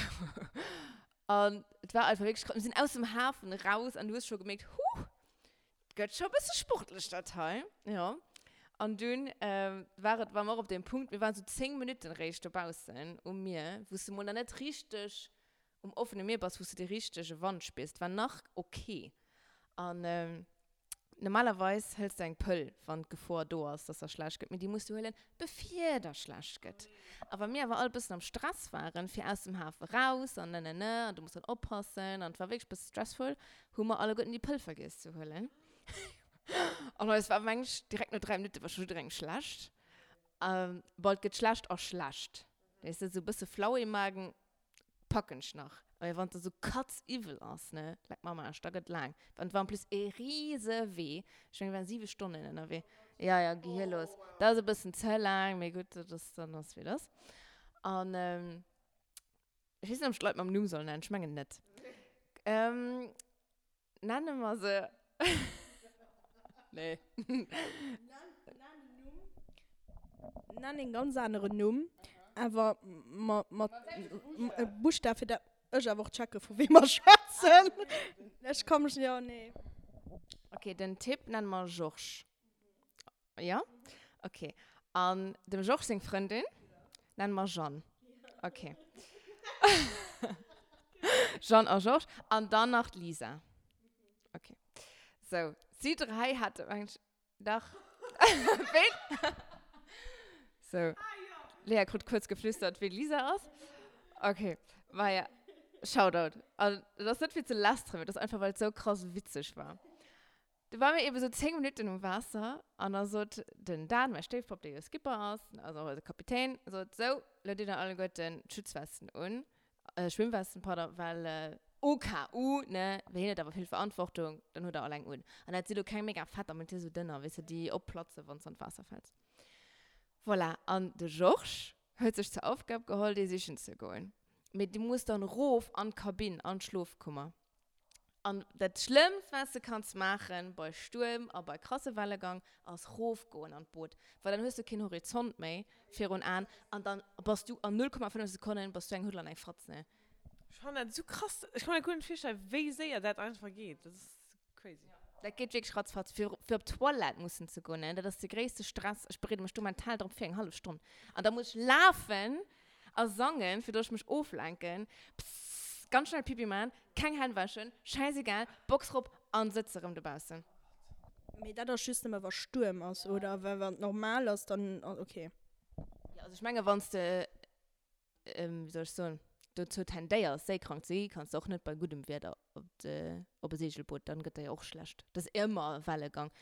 An et war einfach wierklech krass. Mir sinn aus dem Hafen raus an du hues scho gemierkt, Huh, gëtt scho e bësse sportlech dat hei. Jo. An dunn war et, war mer och op deem Punkt, mir waren sou 10 Minutten eréischt dobaussen um Mier, wou s de mol nach net richteg um offene Mier bass, wou s de dee richtege Wand spiers. Et war nach ok. An Normalerweis hëls de eng Pëll, wann d'Gefor do ass, dass der schlecht gëtt, mee déi muss du huelen, bevir der schlecht gëtt. A wa mir awer all bëssen am Stress waren, fir aus dem Hafe raus an nenene, an du muss dann oppassen, an et war wierklech bësse stressful, hu mer alleguerten déi Pëll vergiess ze huelen. An eis war, meng ech, direkt no 3 Minutte war scho jidderengem schlecht. Bon, et gëtt schlecht a schlecht, weess de, esou bësse flau im Magen. Packen ech nach. Mee wann et esou katziwwel ass, ne, leck mer am Aarsch, da gëtt laang. An et war en plus ee riese Wee. Ech mengen, mir waren 7 Stonnen ënnerwee. Ja, ja, gehirlos. Dat ass e bëssen ze laang, mee gutt, dat ass dann ass wéi et ass. An ech weess net, ob ech d'Leit mam Numm soll nennen. Ech mengen net. Nenne mer se. Nee. Nenn en Numm. Nenn een ganz aneren Numm, awer mat Buschtaf, fir dat ech awer och checke vu wem mer schwätzen. Ech ka mech, jo, nee. Ok, den Typ nenne mer Georges. Jo? Ok. An dem Georges seng Frëndin nenne mer Jeanne. Ok. Jeanne a Georges. An dann nach d'Lisa. Ok. Sou, si dräi hate, mengen ech, Dach. Ween? So. Lea krut kuerz geflüstert, ween Lisa ass. Okay. Maja, Shoutout. An dat ass net fir ze lästeren, mee dat ass einfach, well et sou krass witzeg war. Du ware mir eben sou 10 Minutten um Waasser an da sot den Dan, mäi Stéifpapp, dee jo Skipper ass, also och eise Kapitän, sot, Sou, lo ditt der alleguerten d'Schutzwesten un. Schwimmwesten, pardon, well au cas où, ne, well hien huet awer vill Verantwortung, dann huet er all eng un. An dat si lo keng mega fetter, mee dat si sou dënner, weess de, déi opplatzen, wann s de an d'Waasser fäls. Voilà, an de Georges huet sech zur Aufgab geholl, déi sichen ze goen. Mee du muss dann erof an d'Kabinn, an d'Schlofkummer. An dat Schlëmmst, wat s de kanns maachen bei Stuerm a bei krasse Wellegang, ass rofgoen an d'Boot, well dann hues du keen Horizont méi virun Aen an dann bass du an 0,5 Sekonnen bass du eng Huddel an eng Fatz, ne? Ech fannen dat esou krass, ech kann mir guer net virstellen, wéi séier dat einfach geet, dat ass crazy. Dat geet wierklech ratzfatz. Fir fir op d'Toilette mussen ze goen, ne, dat ass de gréisste Stress. Ech bereede mech do mental drop vir, eng hallef Stonn. An da muss ech lafen a sangen, fir dass ech mech oflenken. Pssst, ganz schnell Pipi man, keng Hänn wäschen, schäisegal, Box rop an sëtze rëm dobaussen. Mee dat ass just nëmme wa Stuerm ass, oder? Well wann et normal ass, dann ok. Jo, also ech menge wann s de, wéi soll ech soen, dozou tendéiers séikrank ze gi, kanns de och net bei guddem Wieder op de, op e Segelboot, dann gëtt der jo och schlecht. Et ass ëmmer Wellegang.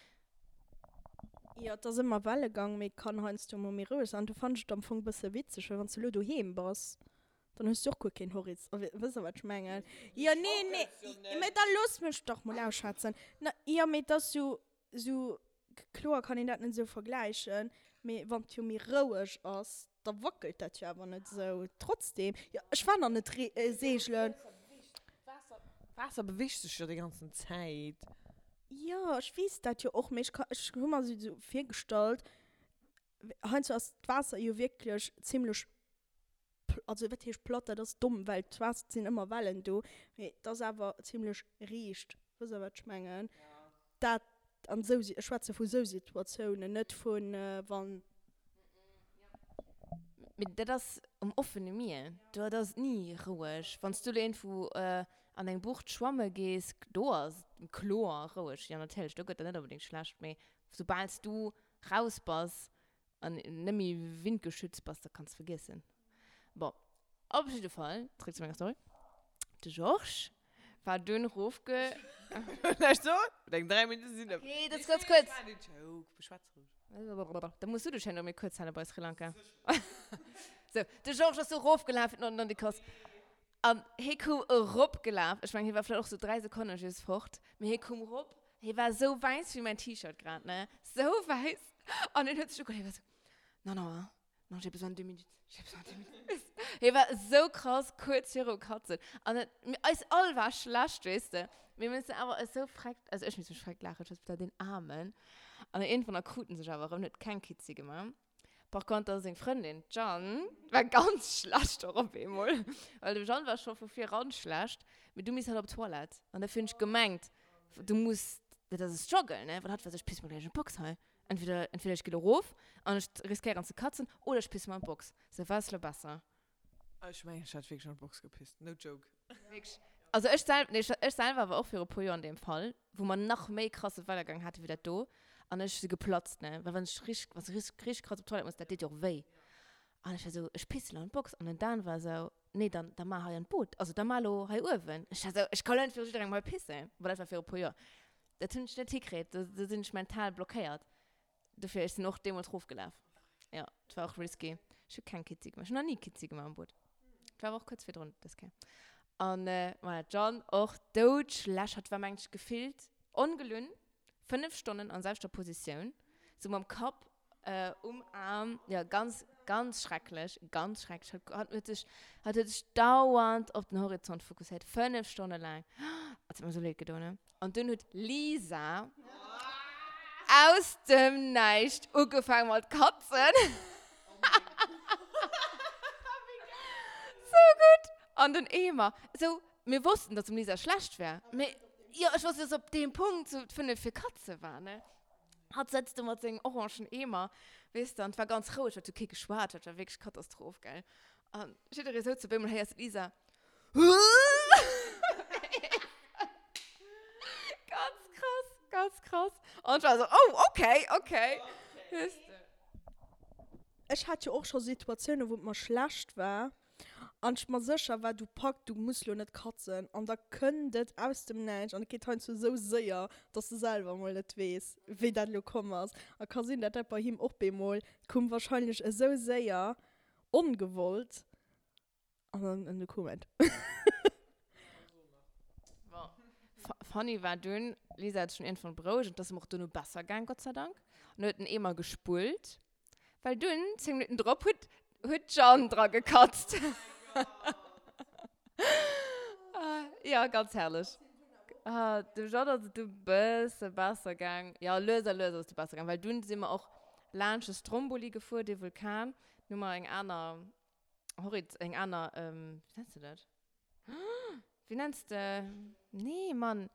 Jo, et ass ëmmer Wellegang, mee et kann heiansdo mol méi roueg sinn. An do fannen ech et am Fong e bësse witzeg, well wann s de elo doheem bass, dann hues du och guer keen Horiz-, wëss der wat ech mengen? Jo, nee, nee, mee da looss mech dach mol ausschwätzen. Na, jo, mee et ass jo sou, kloer kann een dat net esou vergläichen, mee wann et jo méi roueg ass, da wackelt dat jo awer net esou. Trotzdem, jo, ech war nach net seegelen. D'Waasser beweegt sech jo déi ganzen Zäit. Jo, ech weess dat jo och, mee ech ka, ech hu mer esou virgestallt, heiansdo ass d'Waasser jo wierklech zimlech also wat heescht platt, dat ass domm, well d'Waasser, et sinn ëmmer Wellen do, mee et ass awer zimlech riicht. Wësst der wat ech mengen? Dat an esou, ech schwätze vu sou Situatiounen, net vu wann. Mee dat ass um offene Mier, do ass et ni roueg. Wann s du elo iergendwou an eng Bucht schwamme gees, do ass et kloer roueg. Jo natierlech, do gëtt der net onbedéngt schlecht, mee soubal s du raus bass an net méi windgeschützt bass, da kanns vergiessen. Bon, op jidde Fall, zréck zu menger Story. De Georges war dunn rofge... Näischt soen? Deng 3 Minutte sinn ëm. Okay, dat ass ganz kuerz. War den Joke, beschwätz roueg. Da muss du dech herno méi kuerz hale bei Sri Lanka. Sou, de Georges ass du rofgelaf fir an de Kos. An hie koum eropgelaf, ech mengen, hie war vläicht och sou 3 Sekonne just fort, mee hie koum erop, hie war sou wäiss wéi mäin T-Shirt grad, ne, sou wäiss. An hien huet sech ugeholl, hie war sou, Non, non, hein, non, j'ai besoin de deux minutes, j'ai besoin de deux minutes. Hie war sou krass kuerz virum Katzen. An et, mir, eis all war schlecht, weess de. Mir mussen awer eis sou freckt, also ech muss mech freckt laachen, ech war sou, deen Aarmen. An iergendwann da krut en sech awer erëm, huet keng Kitzi gemaach. Par contre seng Frëndin, d'Jeanne, war ganz schlecht och op eemol. Well dem Jeanne war scho vu viran schlecht, mee du misst halt op d'Toilette. An dofir hunn ech gemengt, du muss, dat ass e Struggle, ne? Well hatt war sou, ech piss mer gläich an d'Box hei. Entweder, entweder ech gi lo rof an ech riskéieren ze katzen, oder ech piss mer an d'Box. Sou, wat ass lo besser? Ech mengen, ech hätt wierklech an d'Box gepisst. No joke. Wierklech. Also ech sel, nee, ech selwer war och viru puer Joer an deem Fall, wou mer nach méi krasse Wellegang hate wéi dat do. An ech si geplatzt, ne. Well wann ech richteg, wann s de richteg, richteg krass op d'Toilette muss, dat deet jo och wéi. An ech war esou, ech pisse lo an d'Box. An den Dan war esou, nee, dann, da mar hei an d'Boot. Also da mar lo hei uewen. Ech war esou, ech ka lo net viru jidderengem hei pissen. Bon, dat war viru puer Joer. Dat hunn ech net hikritt. Do, do sinn ech mental blockéiert. Dofir, ech sinn och deemools rofgelaf. Jo, et war och risky. Ech hu keng Kitzi gemaach. Ech hunn nach ni Kitzi gemaach am Boot. Et war awer och kuerz virdrun dës Kéier. An voilà, d'Jeanne och doudschlecht. Hatt war, mengen ech, gefillt ongelunn 5 Stonnen an selwechter Positioun, sou mam Kapp um Aarm. Jo, ganz, ganz schrecklech, ganz schrecklech. Hatt, hatt huet sech, hatt huet sech dauernd op den Horizont fokusséiert, 5 Stonne laang. Et huet mer sou leed gedoen, ne? An dunn huet d'Lisa aus dem Näischt ugefaangen mat katzen. Sou gutt! An den Eemer. Sou, mir wossten, dass dem Lisa schlecht war. Mee, jo, ech wosst net, dass op deem Punkt sou d'Fënnef fir Katze war, ne? Hatt sëtzt do mat sengem orangen Eemer, weess de, an et war ganz roueg, et huet kee geschwat, dat war wierklech Katastroph, gell? An jidderee souz op eemol, héiers de d'Lisa, Ganz krass, ganz krass. An ech war sou, oh, okay, okay. Weess de. Ech hat jo och scho Situatiounen, wou et mer schlecht war an ech mer sécher war, du pack, du muss lo net katzen an da kënnt et aus dem Näischt an et geet heiansdo esou séier, dass de selwer mol net weess, wéi dat elo komm ass. A ka sinn, dat dat bei him och bemol koum, wahrscheinlech esou séier, ongewollt an dann an du koum et. Bon, funny war dunn, Lisa huet sech dunn iergendwann berouegt an et ass em och dono besser gaang, Gott sei Dank, an huet den Eemer gespullt. Well dunn, 10 Minutten drop, huet, huet d'Jeanne dra gekatzt. Ja, ganz herrlech. Ah, dem Jeanne ass et du bësse besser gaang. Ja, lues a lues ass et du besser gaang, well dunn si mer och laanscht de Stromboli gefuer, dee Vulkan. Nun hu mer eng aner Horiz-, eng aner, wéi nenns de dat? Wéi nenns de, nee, Mann.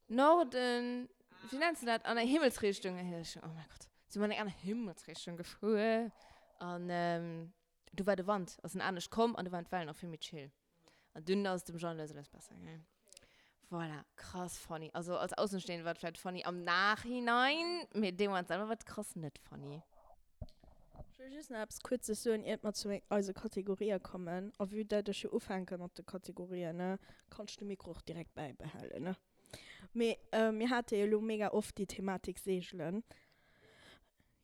Norden, wéi nenns de dat? An eng Himmelsrichtung, oh mein Gott, si mer an eng aner Himmelsrichtung gefuer an du war de Wand, ass en anescht komm an du waren d'Wellen och vill méi chill. An dunn ass et dem Jean lues a lues besser gaangen. Voilà, krass funny. Also als Aussenstehende war et vläicht funny am Nachhinein, mee dee Moment selwer war et krass net funny. Ech wëll just nach eppes Kuerzes soen, iert mer zu eise Kategorië kommen. A vue dat ech jo ufänke mat de Kategorien, ne, kann ech de Mikro och direkt bäibehalen, ne. Mee mir hate jo elo mega oft déi Thematik Seegelen.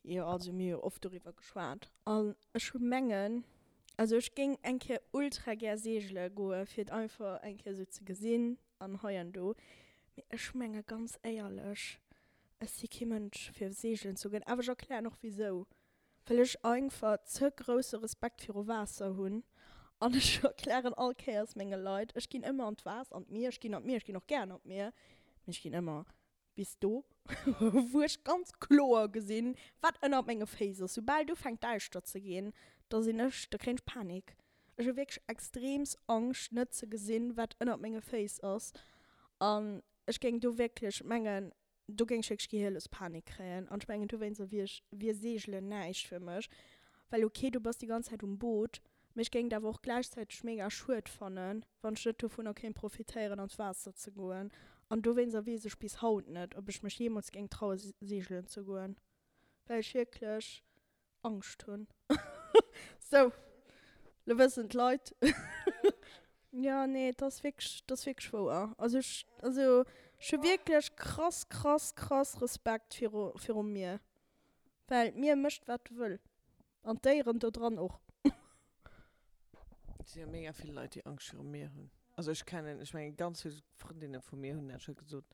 Jo, also mir hu jo oft doriwwer geschwat. An ech mengen, also ech géing eng Kéier ultra gär seegele goe fir et einfach eng Kéier esou ze gesinn an hei an do. Mee ech menge ganz éierlech, Ech si kee Mënsch fir seegelen ze goen, awer ech erklären och wisou, well ech einfach ze grousse Respekt viru Waasser hunn an ech erklären all Kéiers menge Leit, ech ginn ëmmer an d'Waasser, an d'Mier, ech ginn an d'Mier, ech ginn och gären an d'Mier, mee ech ginn ëmmer bis do wou ech ganz kloer gesinn wat ënnert menge Féiss ass. Soubal et ufänkt däischter ze ginn, da sinn ech, da kréien ech Panik. Ech hu wierklech extreemst Angscht net ze gesinn wat ënnert menge Féiss ass an Ech géing do wierklech mengen, do géing ech wierklech gehierlos Panik kréien. An ech mengen, dowéinster wier ech, wier Seegelen näischt fir mech. Well ok, du bass déi ganz Zäit um Boot, mee ech géing et awer och gläichzäiteg mega schued fannen, wann ech net dovunner kéint profitéieren an d'Waasser ze goen. An dowéinster weess ech bis haut net, ob ech mech jeemools géing traue seegelen ze goen, well ech wierklech Angscht hunn. Sou, lo wëssen d'Leit. Jo, nee, et ass wierklech, et ass wierklech wouer. Also ech, also ech hu wierklech krass, krass, krass Respekt viru, virum Mier. Well d'Mier mécht wat wëll. An d'Déieren do dran och. Et si jo mega vill Leit, déi Angscht virum Mier hunn. Also ech kennen, ech mengen ganz vill Frëndinne vu mir hunn dat scho gesot.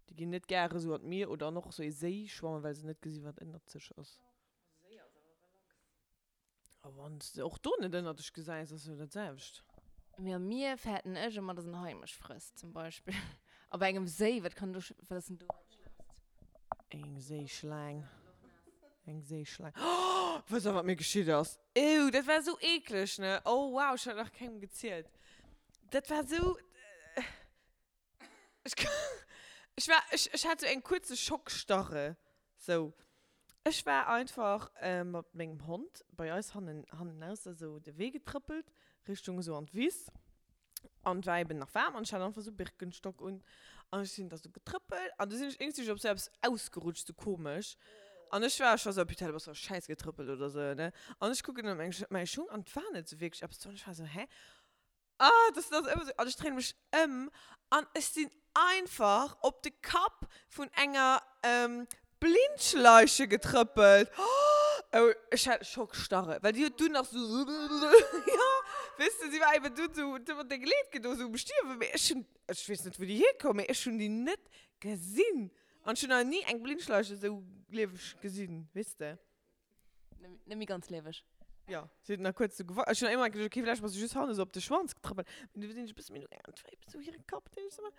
Déi ginn net gäre sou an d'Mier oder an och sou ee Séi schwammen, well se net gesi wat ënnert sech ass. Séi ass awer relax. A wann s de och do net ënnert dech gesäis, ass jo dat selwecht. Mee am Mier fäerten ech ëmmer, dass en Hai mech frësst, zum Beispill. A bei engem Séi, wat kann do, wat ass denn do dat Schlëmmst? Eng Séischlaang. Eng Séischlaang. Oh! Wësst der, wat mir geschitt ass? Ew, dat war esou eekleg, ne? Oh wow, ech hat nach kengem gezielt. Dat war esou. Ech, ech war, ech, ech hat sou eng kuerze Schockstarre, sou. Ech war einfach mat mengem Hond bei eis hannen, hannenaus da sou de Wee getrëppelt, Richtung esou an d'Wiss. An et war eben nach waarm an ech hat einfach sou Birkenstock un. An ech sinn da sou getrëppelt an du sinn ech iergendwéi op sou eppes ausgerutscht, sou komesch. An ech war scho sou, putain, du bass a Schäiss getrëppelt oder sou, ne? An ech kucken op meng, mäi Schung an et war net sou wierklech eppes do. An ech war sou, hä? Ah, das ass ëmmer sou. An ech dréine mech ëm an ech sinn einfach op de Kapp vun enger Blindschleiche getrëppelt. Oh, ech hat Schockstarre, well déi huet dunn nach sou, jo, weess de, si war eben dunn sou, huet ëmmer deng Leed gedo, sou um Stierwen. Mee ech hunn, ech weess net, wou déi hierkoum, mee ech hunn déi net gesinn. An ech hunn nach ni eng Blindschleiche sou lieweg gesinn, weess de. Net méi ganz lieweg. Jo, si huet nach kuerz sou gewackelt. Ech hunn ëmmer geduecht, okay, vläicht bass du just hannen sou op de Schwanz getrëppelt. Mee du sinn ech e bësse méi no gaangen, an et war eben sou hire Kapp, deen ech sou.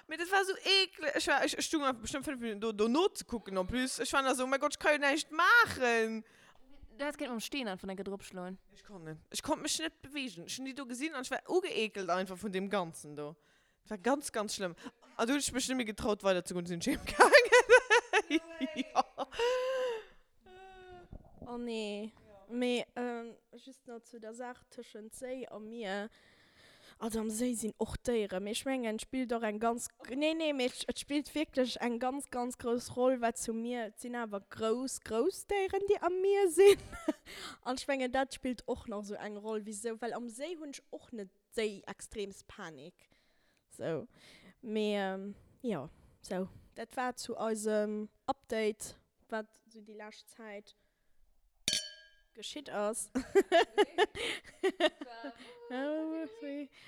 Mee dat war sou eekleg. Ech war, ech stung einfach bestëmmt 5 Minutten do, dono ze kucken en plus. Ech war nach sou, oh mäi Gott, ech ka jo näischt maachen. Du häss kéint mam Steen einfach enke drop schloen. Ech konnt net. Ech konnt mech net bewegen. Ech hunn déi do gesinn an ech war ugeekelt einfach vun deem Ganzen do. Et war ganz, ganz schlëmm. An du hunn ech mech net méi getraut weider ze goen, du sinn ech heem gaangen. Jo. Oh nee. Mee just nach zu der Saach tëschent Séi a Mier. Also am Séi sinn och Déieren, mee ech mengen et spillt och eng ganz, nee nee, mee et spillt wierklech eng ganz ganz grouss Roll wat zum Mier, et sinn awer grouss grouss Déieren déi am Mier sinn an ech mengen dat spillt och nach esou eng Roll wisou, well am Séi hunn ech och net déi extreemst Panik sou, mee jo sou dat war zu eisem Update wat sou déi lescht Zäit geschitt ass.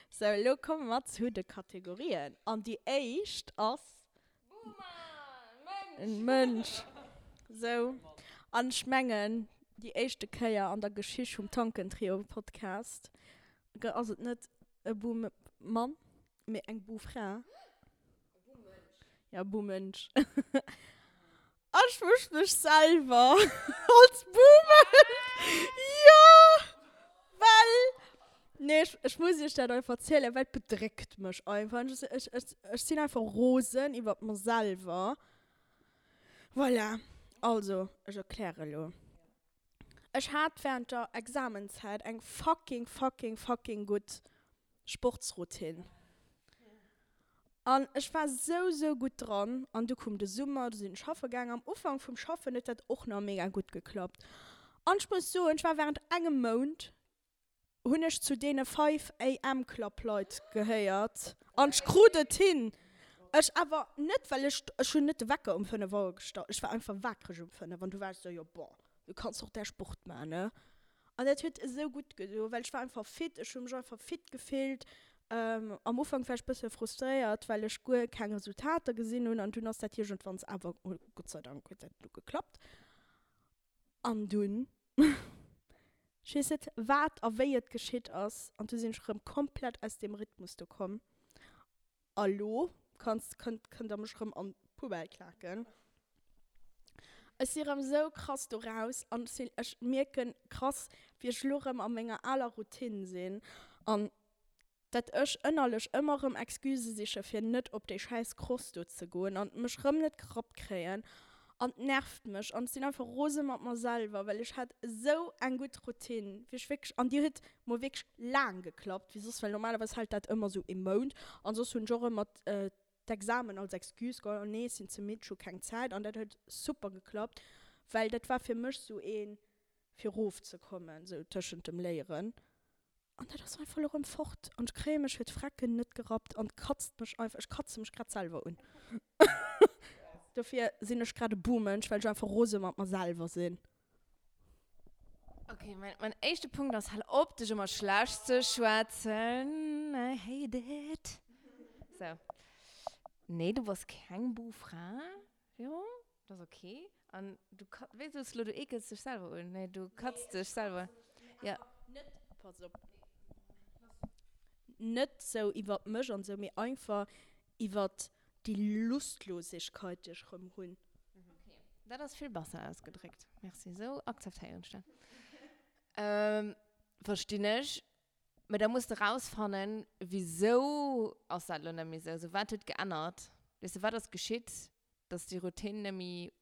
Sou, elo komme mer zu de Kategorien. An déi éischt ass. Mënsch. Sou, an ech mengen, déi éischte Kéier an der Geschicht vum Tankentrio-Podcast ass et net e Buh-Mann, mee eng Buh-Fra. Ja, Buh-Mënsch. Ech wësch mech selwer als Boomer. Jo! Well, nee, ech, ech muss iech dat einfach erzielen, well et bedréckt mech einfach. Ech, ech, ech, ech sinn einfach rosen iwwert mer selwer. Voilà. Also, ech erkläre elo. Ech hat während der Examenzäit eng fucking, fucking, fucking gutt Sportsroutine. An ech war sou, sou gutt dran. An du koum de Summer, du sinn ech schaffe gaangen. Am Ufank vum Schaffen huet dat och nach mega gutt geklappt. An ech muss soen, ech war während engem Mount, hunn ech zu deene 5 AM Club Leit gehéiert. An ech krut et hin. Ech awer net, well ech, ech hunn net de Wecker um 5 Auer gestallt, ech war einfach waakreg um 5 an du war ech sou, jo bon, du kanns och däi Sport maachen, ne? An dat huet esou gutt gedo, well ech war einfach fit, ech hu mech einfach fit gefillt. Am Ufank war ech bësse frustréiert, well ech guer keng Resultater gesinn hunn an dunn ass dat iergendwanns awer, Gott sei Dank huet dat du geklappt. An dunn, ech weess net wat a wéi et geschitt ass, an du sinn ech erëm komplett aus deem Rhythmus do komm. A lo kanns, kënnt, kënnt der mech rëm an d'Poubelle klaken. Ech si rëm sou krass do raus an ech sinn, ech mierken krass, wéi ech lo rëm a menger aler Routine sinn an dat ech ënnerlech ëmmer rëm Excusë siche fir net op déi schäiss Cross do ze goen an mech rëm net gerappt kréien An et nervt mech an ech sinn einfach rose mat mer selwer, well ech hat esou eng gutt Routine, wéi ech wierklech, an déi huet mol wierklech laang geklappt, wéi soss, well normalerweis hält dat ëmmer esou ee Mount an soss hunn ech och ëmmer d'Examen als Excuse geholl, oh nee, ech sinn ze midd, ech hu keng Zäit an dat huet super geklappt, well dat war fir mech esou een, fir erofzekommen, esou tëschent dem Léieren. An dat ass einfach elo rëm fort. An ech kréie mech fir d'Frecken net gerappt an et katzt mech einfach, ech katze mech grad selwer un. Dofir sinn ech grad e Buhmensch, well ech einfach rose mat mer selwer sinn. Ok, mein, mein éischte Punkt ass, hal op dech ëmmer schlecht ze schwätzen. I hate it. Sou. Nee, du bass keng Buhfra, Véro. Dat ass ok. An du ka, wéi soos de lo, du eekels dech selwer un? Nee, du katz dech selwer. Ja. Net, pass op, net sou iwwert mech an sou, mee einfach iwwert déi Lustlosigkeit, déi ech rëm hunn. Ok, dat ass vill besser ausgedréckt. Merci, sou akzeptéieren ech dat. Verstinn ech. Mee da muss de rausfannen, wisou ass dat lo net méi sou? Sou, wat huet geännert? Weess de, wat ass geschitt? dass déi Routine net méi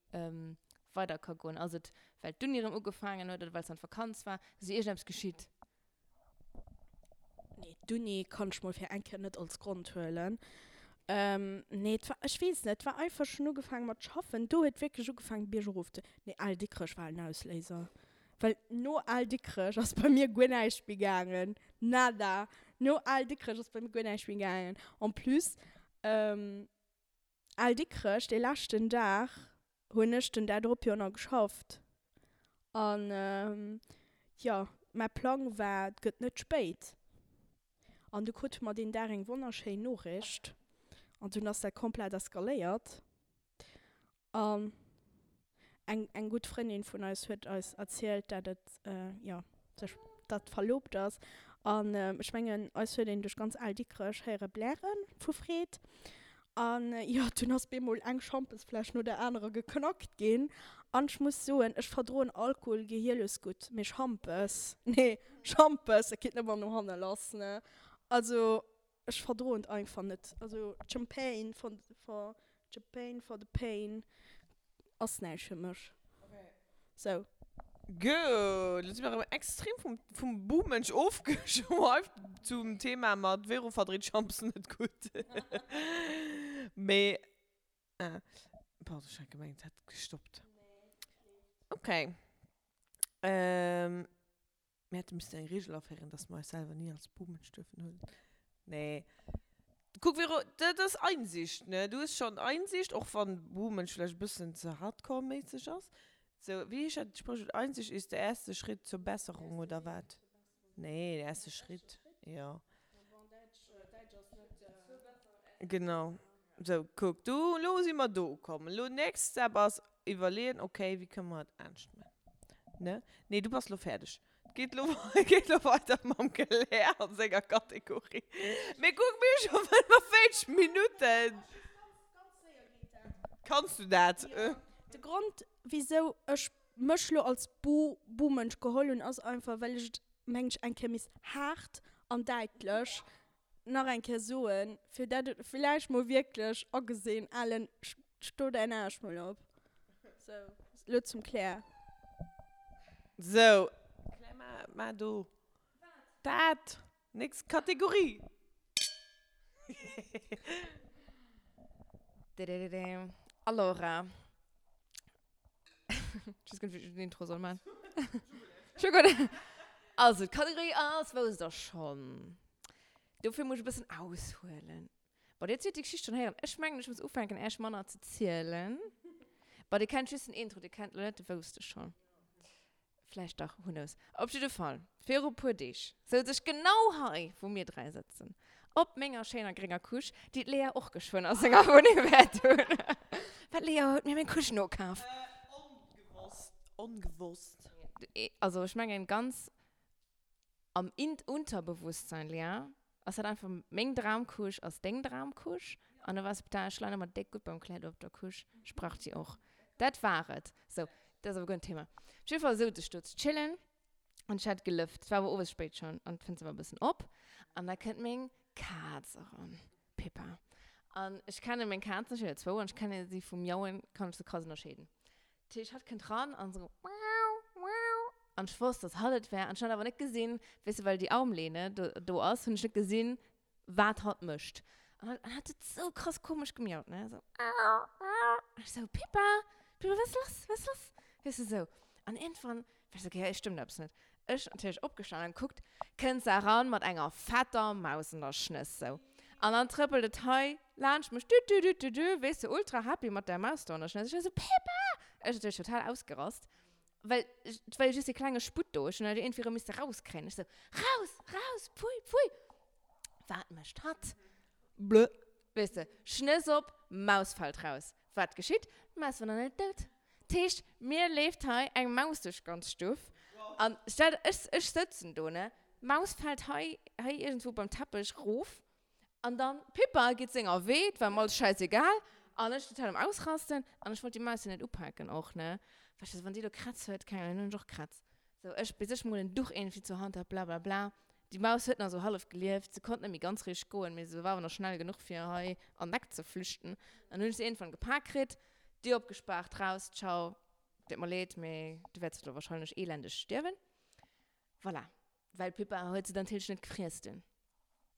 weider ka goen? Ass et, well d'Uni erëm ugefaangen huet oder well s an d'Vakanz war? Ass iergendeppes geschitt? Nee, d'Uni kann ech mol fir eng Kéier net als Grond huelen. Nee, et war, ech weess net, et war einfach, ech hunn ugefaange mat schaffen, do huet wierklech ugefaangen biergerof ze, nee, Al Dikrech war en Ausléiser, well no Al Dikrech ass bei mir guer näischt méi gaangen, nada, no Al Dikrech ass bei mir guer näischt méi gaangen. En plus, Al Dikrech, dee leschten Dag hunn ech den Dag drop jo nach geschafft. An jo, mäi Plang war, et gëtt net spéit. An du krute mer deen Dag eng wonnerschéin Noriicht. An dunn ass dat komplett eskaléiert. An eng, eng gutt Frëndin vun eis huet eis erzielt, dat et, jo, sech, dat verlobt ass. An ech mengen, eis huet een duerch ganz Al Dikrech héiere bläre vu Freed. An jo, dunn ass bemol eng Schampesfläsch no der anerer geknackt ginn. An ech muss soen, ech verdroen Alkohol gehierlos gutt, mee Schampes, nee, Schampes, dat geet net mer no hanne lass, ne. Also ech verdroen et einfach net. Also Champagne for, for, Champagne for the pain ass näischt fir mech. Sou. Gutt, lo si mer erëm extrem vum, vum Buhmensch ofgeschweift zum Thema mat Vero verdreet Schampes net gutt. Mee, ah, pardon, ech hat gemengt, et hätt gestoppt. Okay. Ähm. Mir hätte missten eng Regel aféieren, dass mer eis selwer ni als Buhmensch duerfen huelen. Nee. Kuck, Vero, dat ass Einsicht, ne? Du hues schonn Einsicht, och wann Buhmensch vläicht e bëssen ze hardcore-méisseg ass. Sou, wéi heescht dat Spréchwuert? Einsicht ist der erste Schritt zur Besserung, oder wat? Nee, der erste Schritt, jo. Genau. Sou, kuck, du, elo si mer do ukomm. Elo next step ass iwwerleeën, okay, wéi kënne mer et anescht maachen, ne? Nee, du bass elo fäerdeg. Et geet elo, et geet elo weider mam Claire a senger Kategorie. Mee kuck, mir hu scho 45 Minutten. Kanns du dat? De Grond, wisou ech mech lo als Bu-Buhmensch geholl hunn, ass einfach, well ech et, mengen ech, eng Kéier misst haart an däitlech nach eng Kéier soen, fir dat et villäicht mol wierklech agesinn, Alen, sto däin Aarsch mol op. Sou, lo zum Claire. Sou, Claire, ma, ma do. Wat? Dat! Nächst Kategorie! Allora. Ich weiß gar nicht, wie ich den Intro soll machen. Schon gut. Also, d'Kategorie ass, wousst der schonn. Dofir muss ich e bëssen aushuelen. Bon, dir hutt déi Geschicht schonn héieren. Ech mengen, ech muss ufänken, Äech manner ze zielen. Bon, dir kennt just den Intro, dir kennt lo net de Wousst de schonn. Vläicht dach, who knows. Op jidde Fall, viru puer Deeg souz ech genau hei, wou mir 3 sëtzen, op menger schéiner grénger Couche, déi d'Lea och geschwënn a senger Wunneng wäert hunn. Well d'Lea huet mir meng Couche nokaf. Ongewosst, ongewosst. Also ech mengen ganz am Unterbewusstsein, Lea, ass dat einfach meng Dramcouche ass deng Dramcouche. An du wars, putain, ech leien ëmmer déck gutt beim Claire do op der Couche, ech brauch déi och. Dat war et. Sou, dat ass awer guer net Thema. Op jidde Fall souz ech do ze chillen an ech hat gelëft. Et war awer owes spéit schonn an d'Fënster war e bëssen op an da kënnt meng Kaz eran, d'Pippa. An ech kenne meng Kazen, ech hunn der zwou, an ech kenne si vum Miauen, kann ech se krass ënnerscheeden. Dat heescht, hatt kënnt ran an esou miau, miau. An ech wosst, dass hatt et wär. An ech hunn hatt awer net gesinn, weess de, well déi Armlehne do, do ass, hunn ech net gesinn, wat hatt mécht. An hatt, an hatt huet esou krass komesch gemiaut, ne, esou miau, miau. An ech esou, Pippa, Pippa, wat ass lass, wat ass lass? Weess de, esou. An iergendwann war ech esou, okay, hei stëmmt eppes net. Ech natierlech opgestanen an gekuckt, kënnt se eran mat enger fetter Maus an der Schnëss, sou. An dann trëppelt et hei laanscht mech, dü dü dü dü dü, weess de, ultra happy mat där Maus do an der Schnëss. Ech war sou, Pippa! Ech natierlech total ausgerast, well et war jo just dee klenge Sputt do, ech hunn dat jo iergendwéi erëm misse rauskréien. Ech sou, Raus! Raus! Pfui! Pfui! Wat mécht hatt? Blö! Weess de, Schnëss op, Maus fält raus. Wat geschitt? D'Maus war nach net dout. D'heescht, mir leeft hei eng Maus duerch d'ganz Stuff. An stell der, ech, ech sëtzen do, ne, d'Maus fält hei, hei iergendwou beim Teppech rof. An dann, d'Pippa geet senger Wee, 't war em alles schäisegal. An ech total am Ausrasten. An ech wollt déi Maus jo net upaken och, ne. Well ech sou, wann déi elo Krätz huet, keng Ahnung, dann hunn ech och Krätz. Sou, ech, bis ech mol en Duch iergendwéi zur Hand hat, blablabla. Déi Maus huet nach sou hallef gelieft, se konnt net méi ganz richteg goen, mee se war awer nach schnell genuch fir hei an d'Eck ze flüchten. An hunn ech se iergendwann gepak kritt, Dier opgespaart, raus, ciao, deet mer leed, mee du wäerts elo wahrscheinlech elendeg stierwen. Voilà, well d'Pippa huet se dann natierlech net gefriess dunn.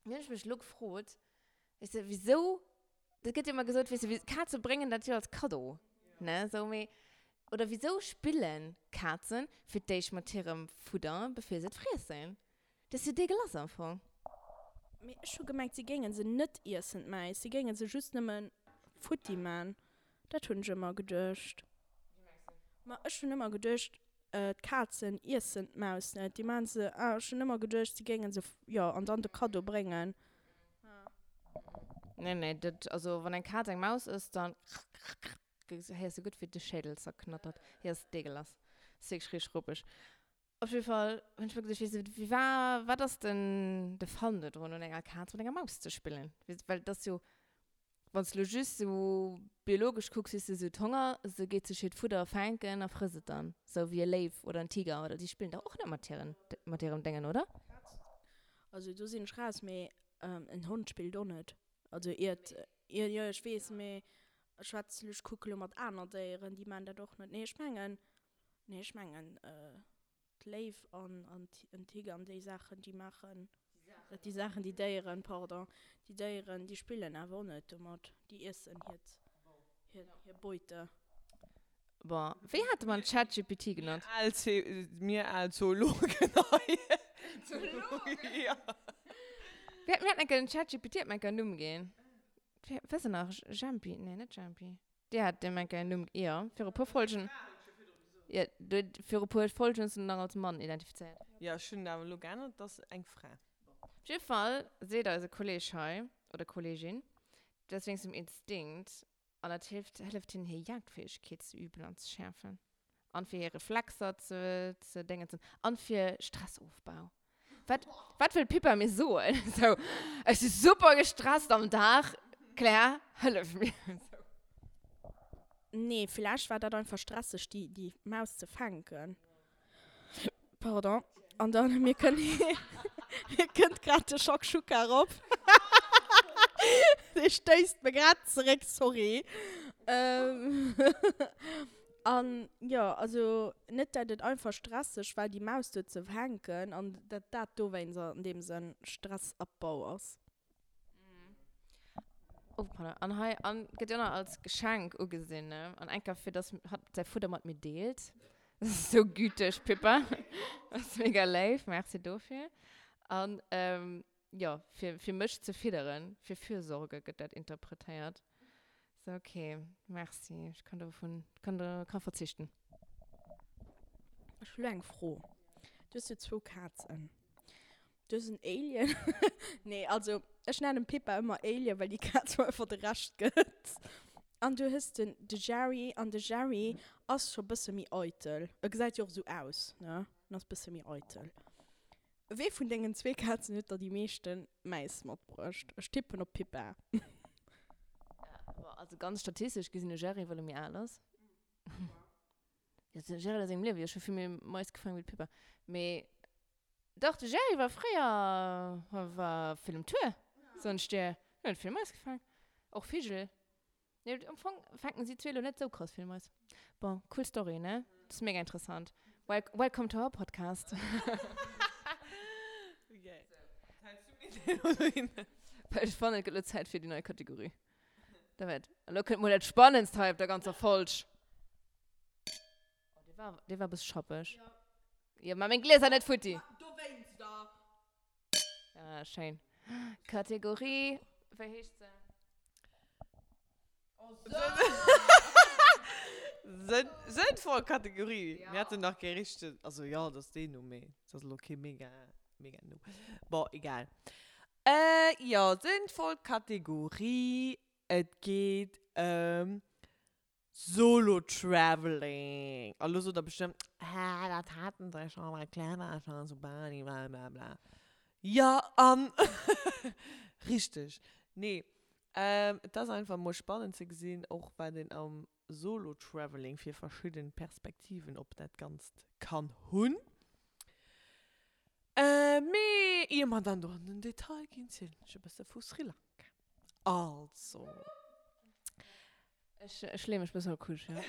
Dunn hunn ech mech elo gefrot, weess de, wisou Dat gëtt jo ëmmer gesot, weess de, Kaze bréngen dat jo als Kaddo, ne, sou, mee, oder wisou spillen Kazen fir d'éischt mat hirem Fudder, bevir se et friessen? Dat ass jo dégueulasse am Fong. Mee ech hu gemengt, si géingen se net iessen, d'Mäis, si géingen se just nëmmen futti man. Dat hunn ech ëmmer geduecht. Ma ech hunn ëmmer geduecht, D'Kazen iessen d'Maus net, déi maachen se, ah ech hunn ëmmer geduecht si géingen se, jo, an dann de Kaddo bréngen. Nee, nee, dat, also wann eng Kaz eng Maus ësst, dann héiers de gutt wéi de Schädel zerknattert. Hie ass deegelass. Ass wierklech richteg ruppeg. Op jidde Fall hunn ech mer geduecht, weess de, wéi war, wat ass den de Fun do drun un enger Kaz mat enger Maus ze spillen? Well et ass jo. Wann s de lo just sou biologesch kucks, weess de, se huet Honger, se geet sech hiert Fudder fänken a frësst et dann. Sou wéi e Léiw oder en Tiger oder déi spillen dach och net mat hiren, mat hirem Déngen, oder? Also do sinn ech raus, mee en Hond spillt och net. Also iert, jo jo ech weess, mee ech schwätz, ech kucke lo mat aner Déieren, déi maan dat och net. Nee ech mengen, nee ech mengen d'Léiw an an en Tiger an déi Saachen déi maachen dat, déi Saachen, déi Déieren, pardon, déi Déieren déi spillen awer och net domat, déi iessen hiert hir hir Beute. Bon, wéi hate mer den ChatGPT genannt? Mir al Mir al Zoologen hei. Zoologen? Ja. Mir haten enker den ChatGPT hat mer enker en Numm ginn. Wéi ass en nach? Jempi? Nee, net Jempi. Dir hat deem enker en Numm, jo, viru puer Folgen. Jo, du, viru puer Folgen hues du en nach als Mann identifizéiert. Jo, ech hunn et awer elo geännert, et ass eng Fra. Op jidde Fall seet eise Kolleg hei, oder Kollegin, dat ass wéinst dem Instinkt an dat hilft, hëlleft hinnen hir Jagdfäegkeet ze üben an ze schäerfen an fir hir Reflexer ze, ze déngensen an fir Stressofbau. Wat, wat wëll d'Pippa mir soen? Sou, ech si super gestresst am Dag, Claire, hëllef mir. Sou. Nee, villäicht war dat einfach stresseg, déi, déi Maus ze fänken. Pardon. An dann, mir kënn, mir kënnt grad de Shakshuka erop. Dee stéisst mir grad zeréck, sorry. An jo, also net dat et einfach stresseg war déi Maus do ze fänken an dat dat dowéinst an deem Sënn Stressabbau ass. Oh pardon, an hei an gëtt jo nach als Geschenk ugesinn, ne? An enker fir dass hatt säi Fudder mat mir deelt. Das ist sou güteg, Pippa. Das ist mega léif, merci dofir. An jo, fir fir mech ze fidderen, fir Fürsorge gëtt dat interpretéiert. So, okay, merci. Ech kann dovun, kann do, kann verzichten. Ech hu lo eng Fro. Du hues jo zwou Kazen. Du hues en Alien. Nee, also ech nennen Pippa ëmmer Alien, well déi Kaz mer einfach de Rescht gëtt. An du hues den, de Jerry, an de Jerry ass scho bësse méi eitel. E gesäit jo och esou aus, ne? En ass bësse méi eitel. Wee vun dengen zwee Kazen huet der déi meeschten Mäis matbruecht? Ech tippen op d'Pippa. Bon, also ganz statistesch gesinn de Jerry, well e méi al ass. Jo, de Jerry a sengem Liewe jo scho vill méi Mais gefaangen wéi d'Pippa. Mee dach, de Jerry war fréier, war vill um Tour, soen ech dir. En huet vill Mais gefaangen. Och Vigel. Nee, am Fong fänken si zwee lo net sou krass vill Mais. Bon, cool Story, ne? Das ist mega interessant. Wel welcome to our podcast. Well ech fannen, et gëtt lo Zäit fir déi nei Kategorie. Da wäert. An lo kënnt mol dat Spannendst hei op der ganzer Folg. Oh, dee war, dee war e bësse schappeg. Jo, ma meng Glieser net futti. Dowéinster. Ah, schéin. Kategorie, wéi heescht se? Sënnvoll Kategorie. Mir haten nach kee richtegen, also jo, dat ass deen Numm, mee et ass elo kee mega, mega Numm. Bon, egal. Jo, sënnvoll Kategorie, et geet ëm Solo Traveling! A lo sot der bestëmmt, Hä, dat haten se scho bei Clever scho zu Bali, bla bla bla. Jo, an? Richteg. Nee, et ass einfach mol spannend ze gesinn, och wat een am Solo Traveling fir verschidden Perspektiven op dat Ganzt kann hunn. Mee ier mer dann do an den Detail ginn, zielen ech e bësse vu Sri Lanka. Also. Ech, ech leeë mech bëssen op d'Couche, ja.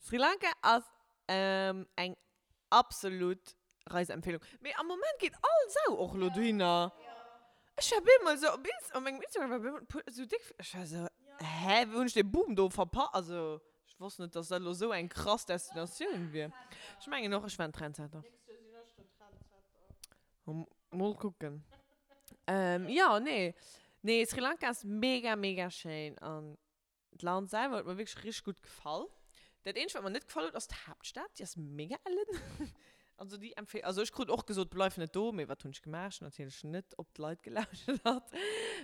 Sri Lanka ass eng absolut Reiseempfehlung. Mee am Moment geet all Sau och elo dohinner. Ech war bemol esou op Inst, op mengem Instagram war bemol puer esou déck, ech war esou, hä, wou hunn ech dee Boom do verpa-, also ech wosst net, dass dat elo esou eng krass Destinatioun wier. Ech mengen och, ech war en Trendsetter. Mol kucken. Jo, nee. Nee, Sri Lanka ass mega, mega schéin an d'Land selwer huet mer wierklech richteg gutt gefall. Dat eenzegt, wat mer net gefall huet, ass d'Haaptstad. Déi ass mega ellen. Also déi empfehl, also ech krut och gesot, bleif net do, mee wat hunn ech gemaach? Ech hunn natierlech net op d'Leit gelauschtert,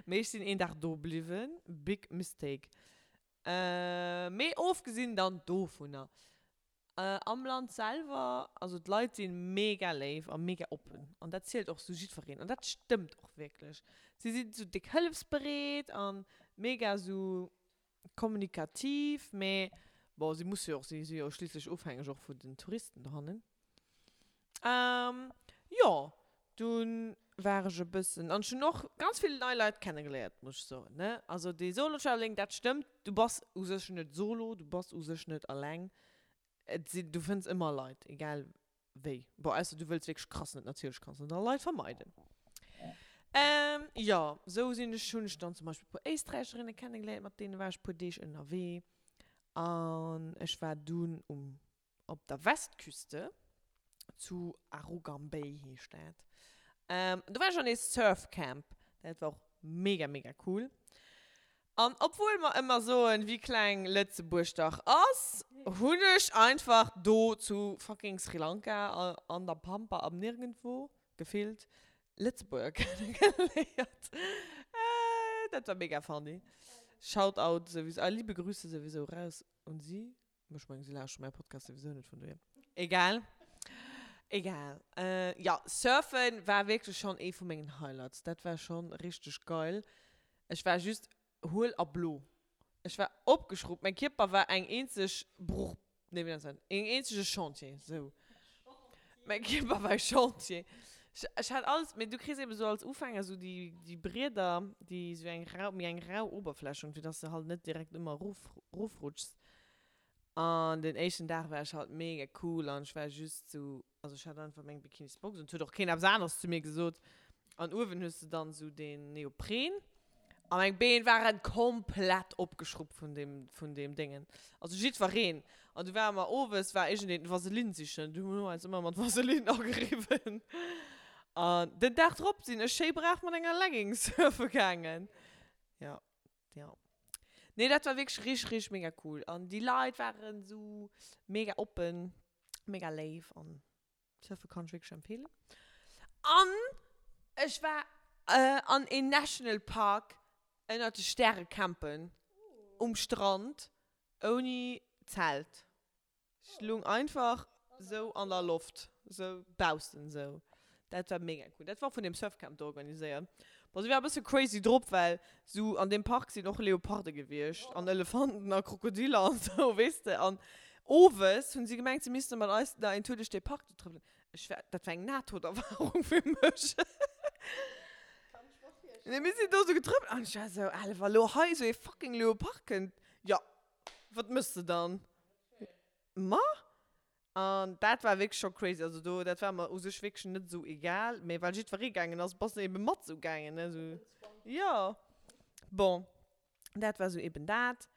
mee ech sinn een Dag do bliwwen. Big mistake. Mee ofgesinn dann dovunner. Am Land selwer, also d'Leit si mega léif a mega oppen an dat zielt och sou jiddwereen an dat stëmmt och wierklech. Si sinn sou déck hëllefsbereet a mega sou kommunikativ, mee bon, si musse jo och, si si jo schliisslech ofhängeg och vun den Touristen dohannen. Jo, dunn war ech e bëssen, an ech hunn och ganz vill nei Leit kennegeléiert, muss ech soen, ne. Also dee Solo-Traveling, dat stëmmt, du bass u sech net solo, du bass u sech net alleng. Et sinn, du fënns ëmmer Leit, egal wéi. Bon, ausser du wëlls wierklech krass net, natierlech kanns de da Leit vermeiden. Jo, sou sinn ech, hunn ech dann zum Beispill e puer Éisträicherinne kennegeléiert, mat deene war ech e puer Deeg ënnerwee. An ech war dunn um Op der Westküste, zu Arugam Bay heescht dat. Do war ech an ee Surfcamp. Dat war och mega, mega cool. An obwuel mer ëmmer soen, wéi kleng Lëtzebuerg dach ass, hunn ech einfach do zu fucking Sri Lanka, an der Pampa am Nirgendwo, gefillt, Lëtzebuerger kennegeléiert. Dat war mega funny. Shoutout souwisou, a liebe Grüße souwisou raus un si. Ech mengen, si lauschteren mäi Podcast souwisou net, vun dohier. Egal. Egal. Jo, Surfen war wierklech schonn ee vu mengen Highlights. Dat war schonn richteg geil. Ech war just huel a blo. Ech war opgeschruppt. Mäi Kierper war eng eenzeg Bruch, nee, wéi nennt een dat? Een eenzege Chantier, sou. Mäi Kierper war e Chantier. Ech, ech hat alles, mee du kriss eben sou als Ufänger sou déi, déi Brieder, déi sou eng rau, méi eng rau Oberfläch hunn, fir dass de halt net direkt ëmmer erof, erofrutschs. An den éischten Dag war ech halt mega cool an ech war just sou, also ech hat einfach meng Bikinisbox un, et huet och keen eppes aneres zu mir gesot. An uewen hues de dann sou deen Neopren a meng Been waren komplett opgeschruppt vun deem, vun deem Déngen. Also jiddwereen. An du ware mer owes war iergendeen Vaseline sichen, du hu mer eis ëmmer mat Vaseline ageriwwen. An den Dag drop sinn ech schéi brav mat enger Leggings surfe gaangen. Jo. Ja. Nee, dat war wierklech richteg, richteg mega cool. An déi Leit waren esou mega oppen, mega léif an Surfe kann ech wierklech empfehlen. An ech war an een National Park ënnert de Stäre campen, um Strand, ouni Zelt. Ech lung einfach sou an der Loft, sou baussen sou. Dat war mega cool. Dat war och vun deem Surfcamp do organiséiert. Bon, si war e bësse crazy drop, well sou an deem Park sinn och Leoparde gewiescht an Elefanten a Krokodiller an sou, weess de. An owes hunn si gemengt, si misste mat eis nach een Tour duerch dee Park do trëppelen. Ech war, dat war eng Nahtoderfahrung fir mech. Nee, mir sinn do sou getrëppelt an ech war sou, Alter, wa lo hei sou ee fucking Leopard kënnt, jo, Wat mëss de dann? Ma? An dat war wierklech scho crazy. Also do, dat war mer u sech wierklech net esou egal, mee well jiddweree gaangen ass, bass de ebe mat esou gaangen, ne, esou. Jo. Bon, dat war esou eben dat.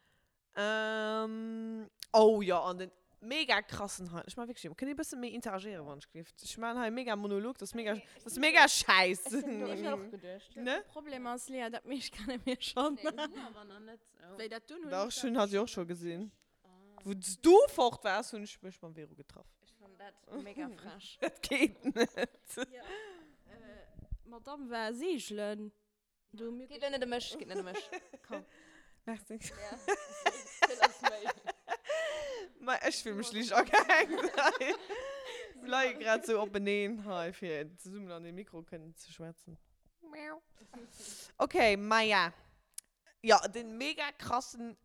Oh jo, an den mega krassen Highlight, ech man wierklech, kënnt dir e bësse méi interagéieren, wann ech géif? Ech man hei e mega Monolog, dat ass mega, dat ass mega schäiss. Ech hunn ech och geduecht. Ne? De Problem ass, Lea, dat meescht kenne mir schonn. Nee, hunn awer nach net. Wéi dat dunn hunn Dach, ech ech hunn hatt jo och scho gesinn. Wou s du fort waars, hunn ech mech mam Vero getraff. Ech fannen dat mega frech. Dat geet net. D'Madame war seegelen. Do hu mir. Geet elo net ëm mech, geet net ëm mech. Komm. Merci. Ja, vill ass méi. Ma ech fill mech liicht agehängt hei. Mir leie grad sou openeen hei, fir zesummen an de Mikro kënnen ze schwätzen. Okay, Maja. Jo, den mega krassen,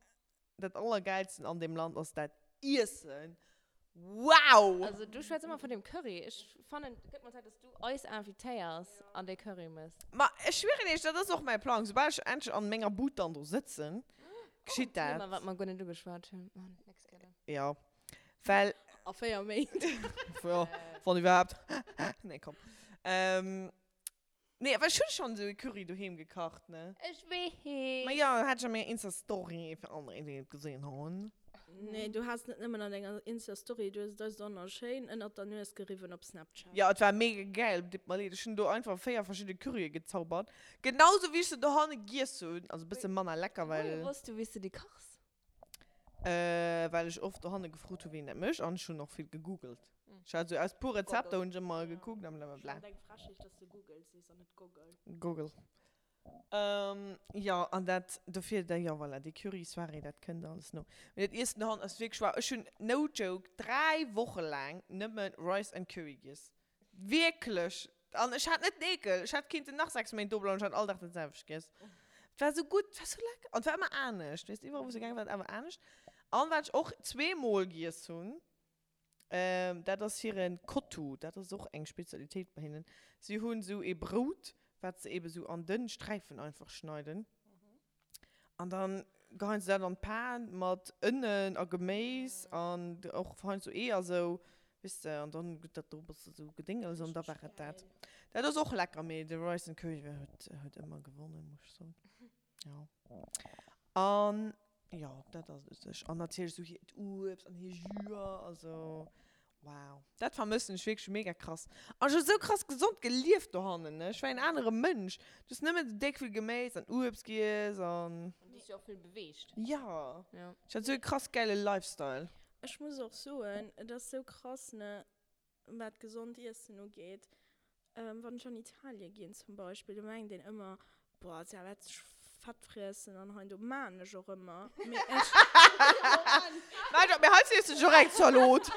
dat allergeilsten an deem Land ass dat Iessen. Wow! Also du schwätz ëmmer vun deem Curry. Ech fannen et gëtt mol Zäit dass du eis invitéiers an dee Curry mëss. Ma ech schwieren iech, dat ass och mäi Plang. Soubal ech endlech an menger Bud dann do sëtzen, geschitt dat. Thema wat mer guer net ugeschwat hunn. Oh, next Kéier dann. Jo, well. A 4 Méint. Jo, wann iwwerhaapt. Nee, komm. Nee, awer ech hunn schonn esou e Curry doheem gekacht, ne? Ech weess. Ma jo, hat ech a menger Insta-Story, fir all déi, déi et gesinn hunn. Nee, du has net nëmmen an denger Insta-Story, du hues et eis och nach schéin ënnert der Nues geriwwen op Snapchat. Jo, et war mega gäil, deet mer leed. Ech hunn do einfach 4 verschidde Currye gezaubert. Genauso wéi ech se dohanne giess hunn. Also e bësse manner lecker, well. Wohier wosst du, wéi s du déi kachs? Äh, well ech oft dohanne gefrot hu wéi een dat mécht an ech hunn och vill gegoogelt. Ech hat esou aus puer Rezepter hunn ech ëmmer gekuckt an blablabla. Ech fannen et eng Frechheet, dass de Google sees an net Goggle. Goggle. Ähm, jo, an dat, dofir, da, jo, voilà, déi Curry-Soirée, dat kënnt alles no. Mee dat Iessen dohannen ass wierklech wow. Ech hunn, no joke, 3 Woche laang nëmme Rice and Curry giess. Wierklech! An ech hat net den Eekel. Ech hätt kinnten nach 6 Méint do bleiwen, ech hätt all Dag dat selwecht giess. Et war esou gutt, et war esou lecker. An et war ëmmer anescht, weess de, iwwerall wou se gaange war, et awer anescht. An wat ech och zweemol giess hunn, dat ass hiren Kottu. Dat ass och eng Spezialitéit bei hinnen. Si hunn esou ee Brout, wat se eben esou an dënn Sträifen einfach schneiden. An dann geheien se dat an d'Pan mat Ënnen a Geméis an och heiansdo Eeër sou, weess de, an dann gëtt dat do e bësse sou gedéngels an da war et dat. Dat ass och lecker, mee de Rice and Curry huet huet ëmmer gewonnen, muss ech soen. Jo. An jo, dat ass et u sech. An natierlech sou hiert Uebst an hir Jüer, also Wow, dat vermëssen ech wierklech mega krass. An ech hu sou krass gesond gelieft dohannen, ne? Ech war een anere Mënsch. Du hues nëmmen sou déck vill Geméis an Uebst giess an. An du hues dech och vill beweegt. Jo. Ja. Ech hat sou e krass gäile Lifestyle. Ech muss och soen, et ass sou krass, ne, wat gesond Iessen ugeet. Wann ech an Italien ginn zum Beispill, do mengt een ëmmer, boah, si wäert sech fett friessen an hei an do. Maan ech och ëmmer, mee ech. Maach op, mee hei friess de dech och eng Zalot.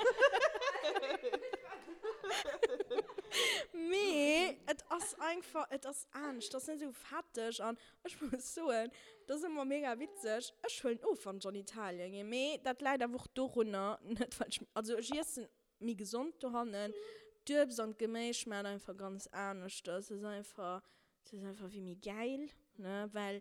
Mee et ass einfach, et ass anescht, et ass net esou fetteg an ech muss soen, et ass ëmmer mega witzeg, ech huelen of wann ech an Italien ginn, mee dat läit awer och dorunner, net well ech, also ech iessen méi gesond dohannen. D'Uebst an d'Geméis schmaacht einfach ganz aneschters. Et ass einfach, et ass einfach wéi méi gäil, ne? Well,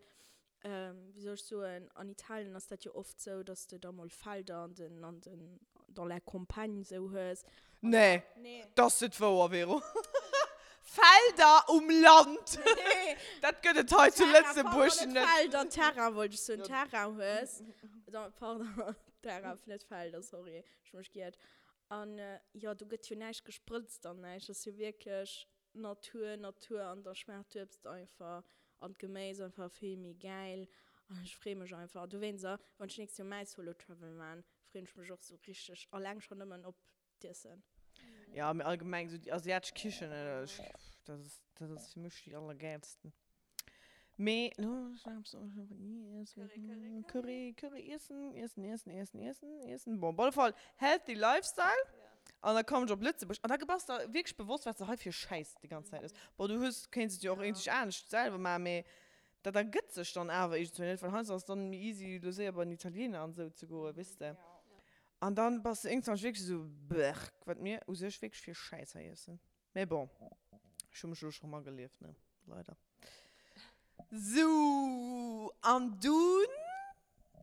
wéi soll ech soen, an Italien ass dat jo oft sou, dass de da mol Felder an den, an den, dans la campagne sou hues. Nee, Nee. dat ass net wouer, Vero. Felder um Land! Nee. Dat gëtt et hei zu Terrain, Lëtzebuerg pardon, net net. Felder, Terrain wollt ech soen, Terrain hues. Pardon, Terrain, net Felder, sorry. Ech hu mech giert. An jo, do gëtt jo näischt gesprëtzt an näischt. Ass jo wierklech Natur, Natur an da schmaacht d'Uebst einfach an d'Geméis einfach vill méi gäil. An ech free mech einfach. A dowéinst, wann ech nächst Joer mäi Solo Travel maan, freen ech mech och sou richteg alleng schon nëmmen op d'Iessen. Jo, mee allgemeng sou déi asiatesch Kichen, dat ass, dat ass fir mech déi allergäilsten. Mee lo Curry, Curry, Iessen, Iessen, Iessen, Iessen, Iessen, Iessen. Bon, op alle Fall healthy Lifestyle. An da koum ech op Lëtzebuerg an da bass der wierklech bewosst, wat s de hei fir Schäiss déi ganz Zäit ëss. Bon, du hues, kéints et jo och iergendwéi anescht selwer maachen, mee dat ergëtt sech dann awer iergendwéi net, well heiansdo ass et dann méi easy, elo séier bei den Italiener an esou ze goen, weess de. An dann bass de iergendwann wierklech esou, Berk, wat mir u sech wierklech fir Schäiss hei iessen. Mee bon, ech hu mech elo scho magelieft, ne? Leider. Sou, an dunn,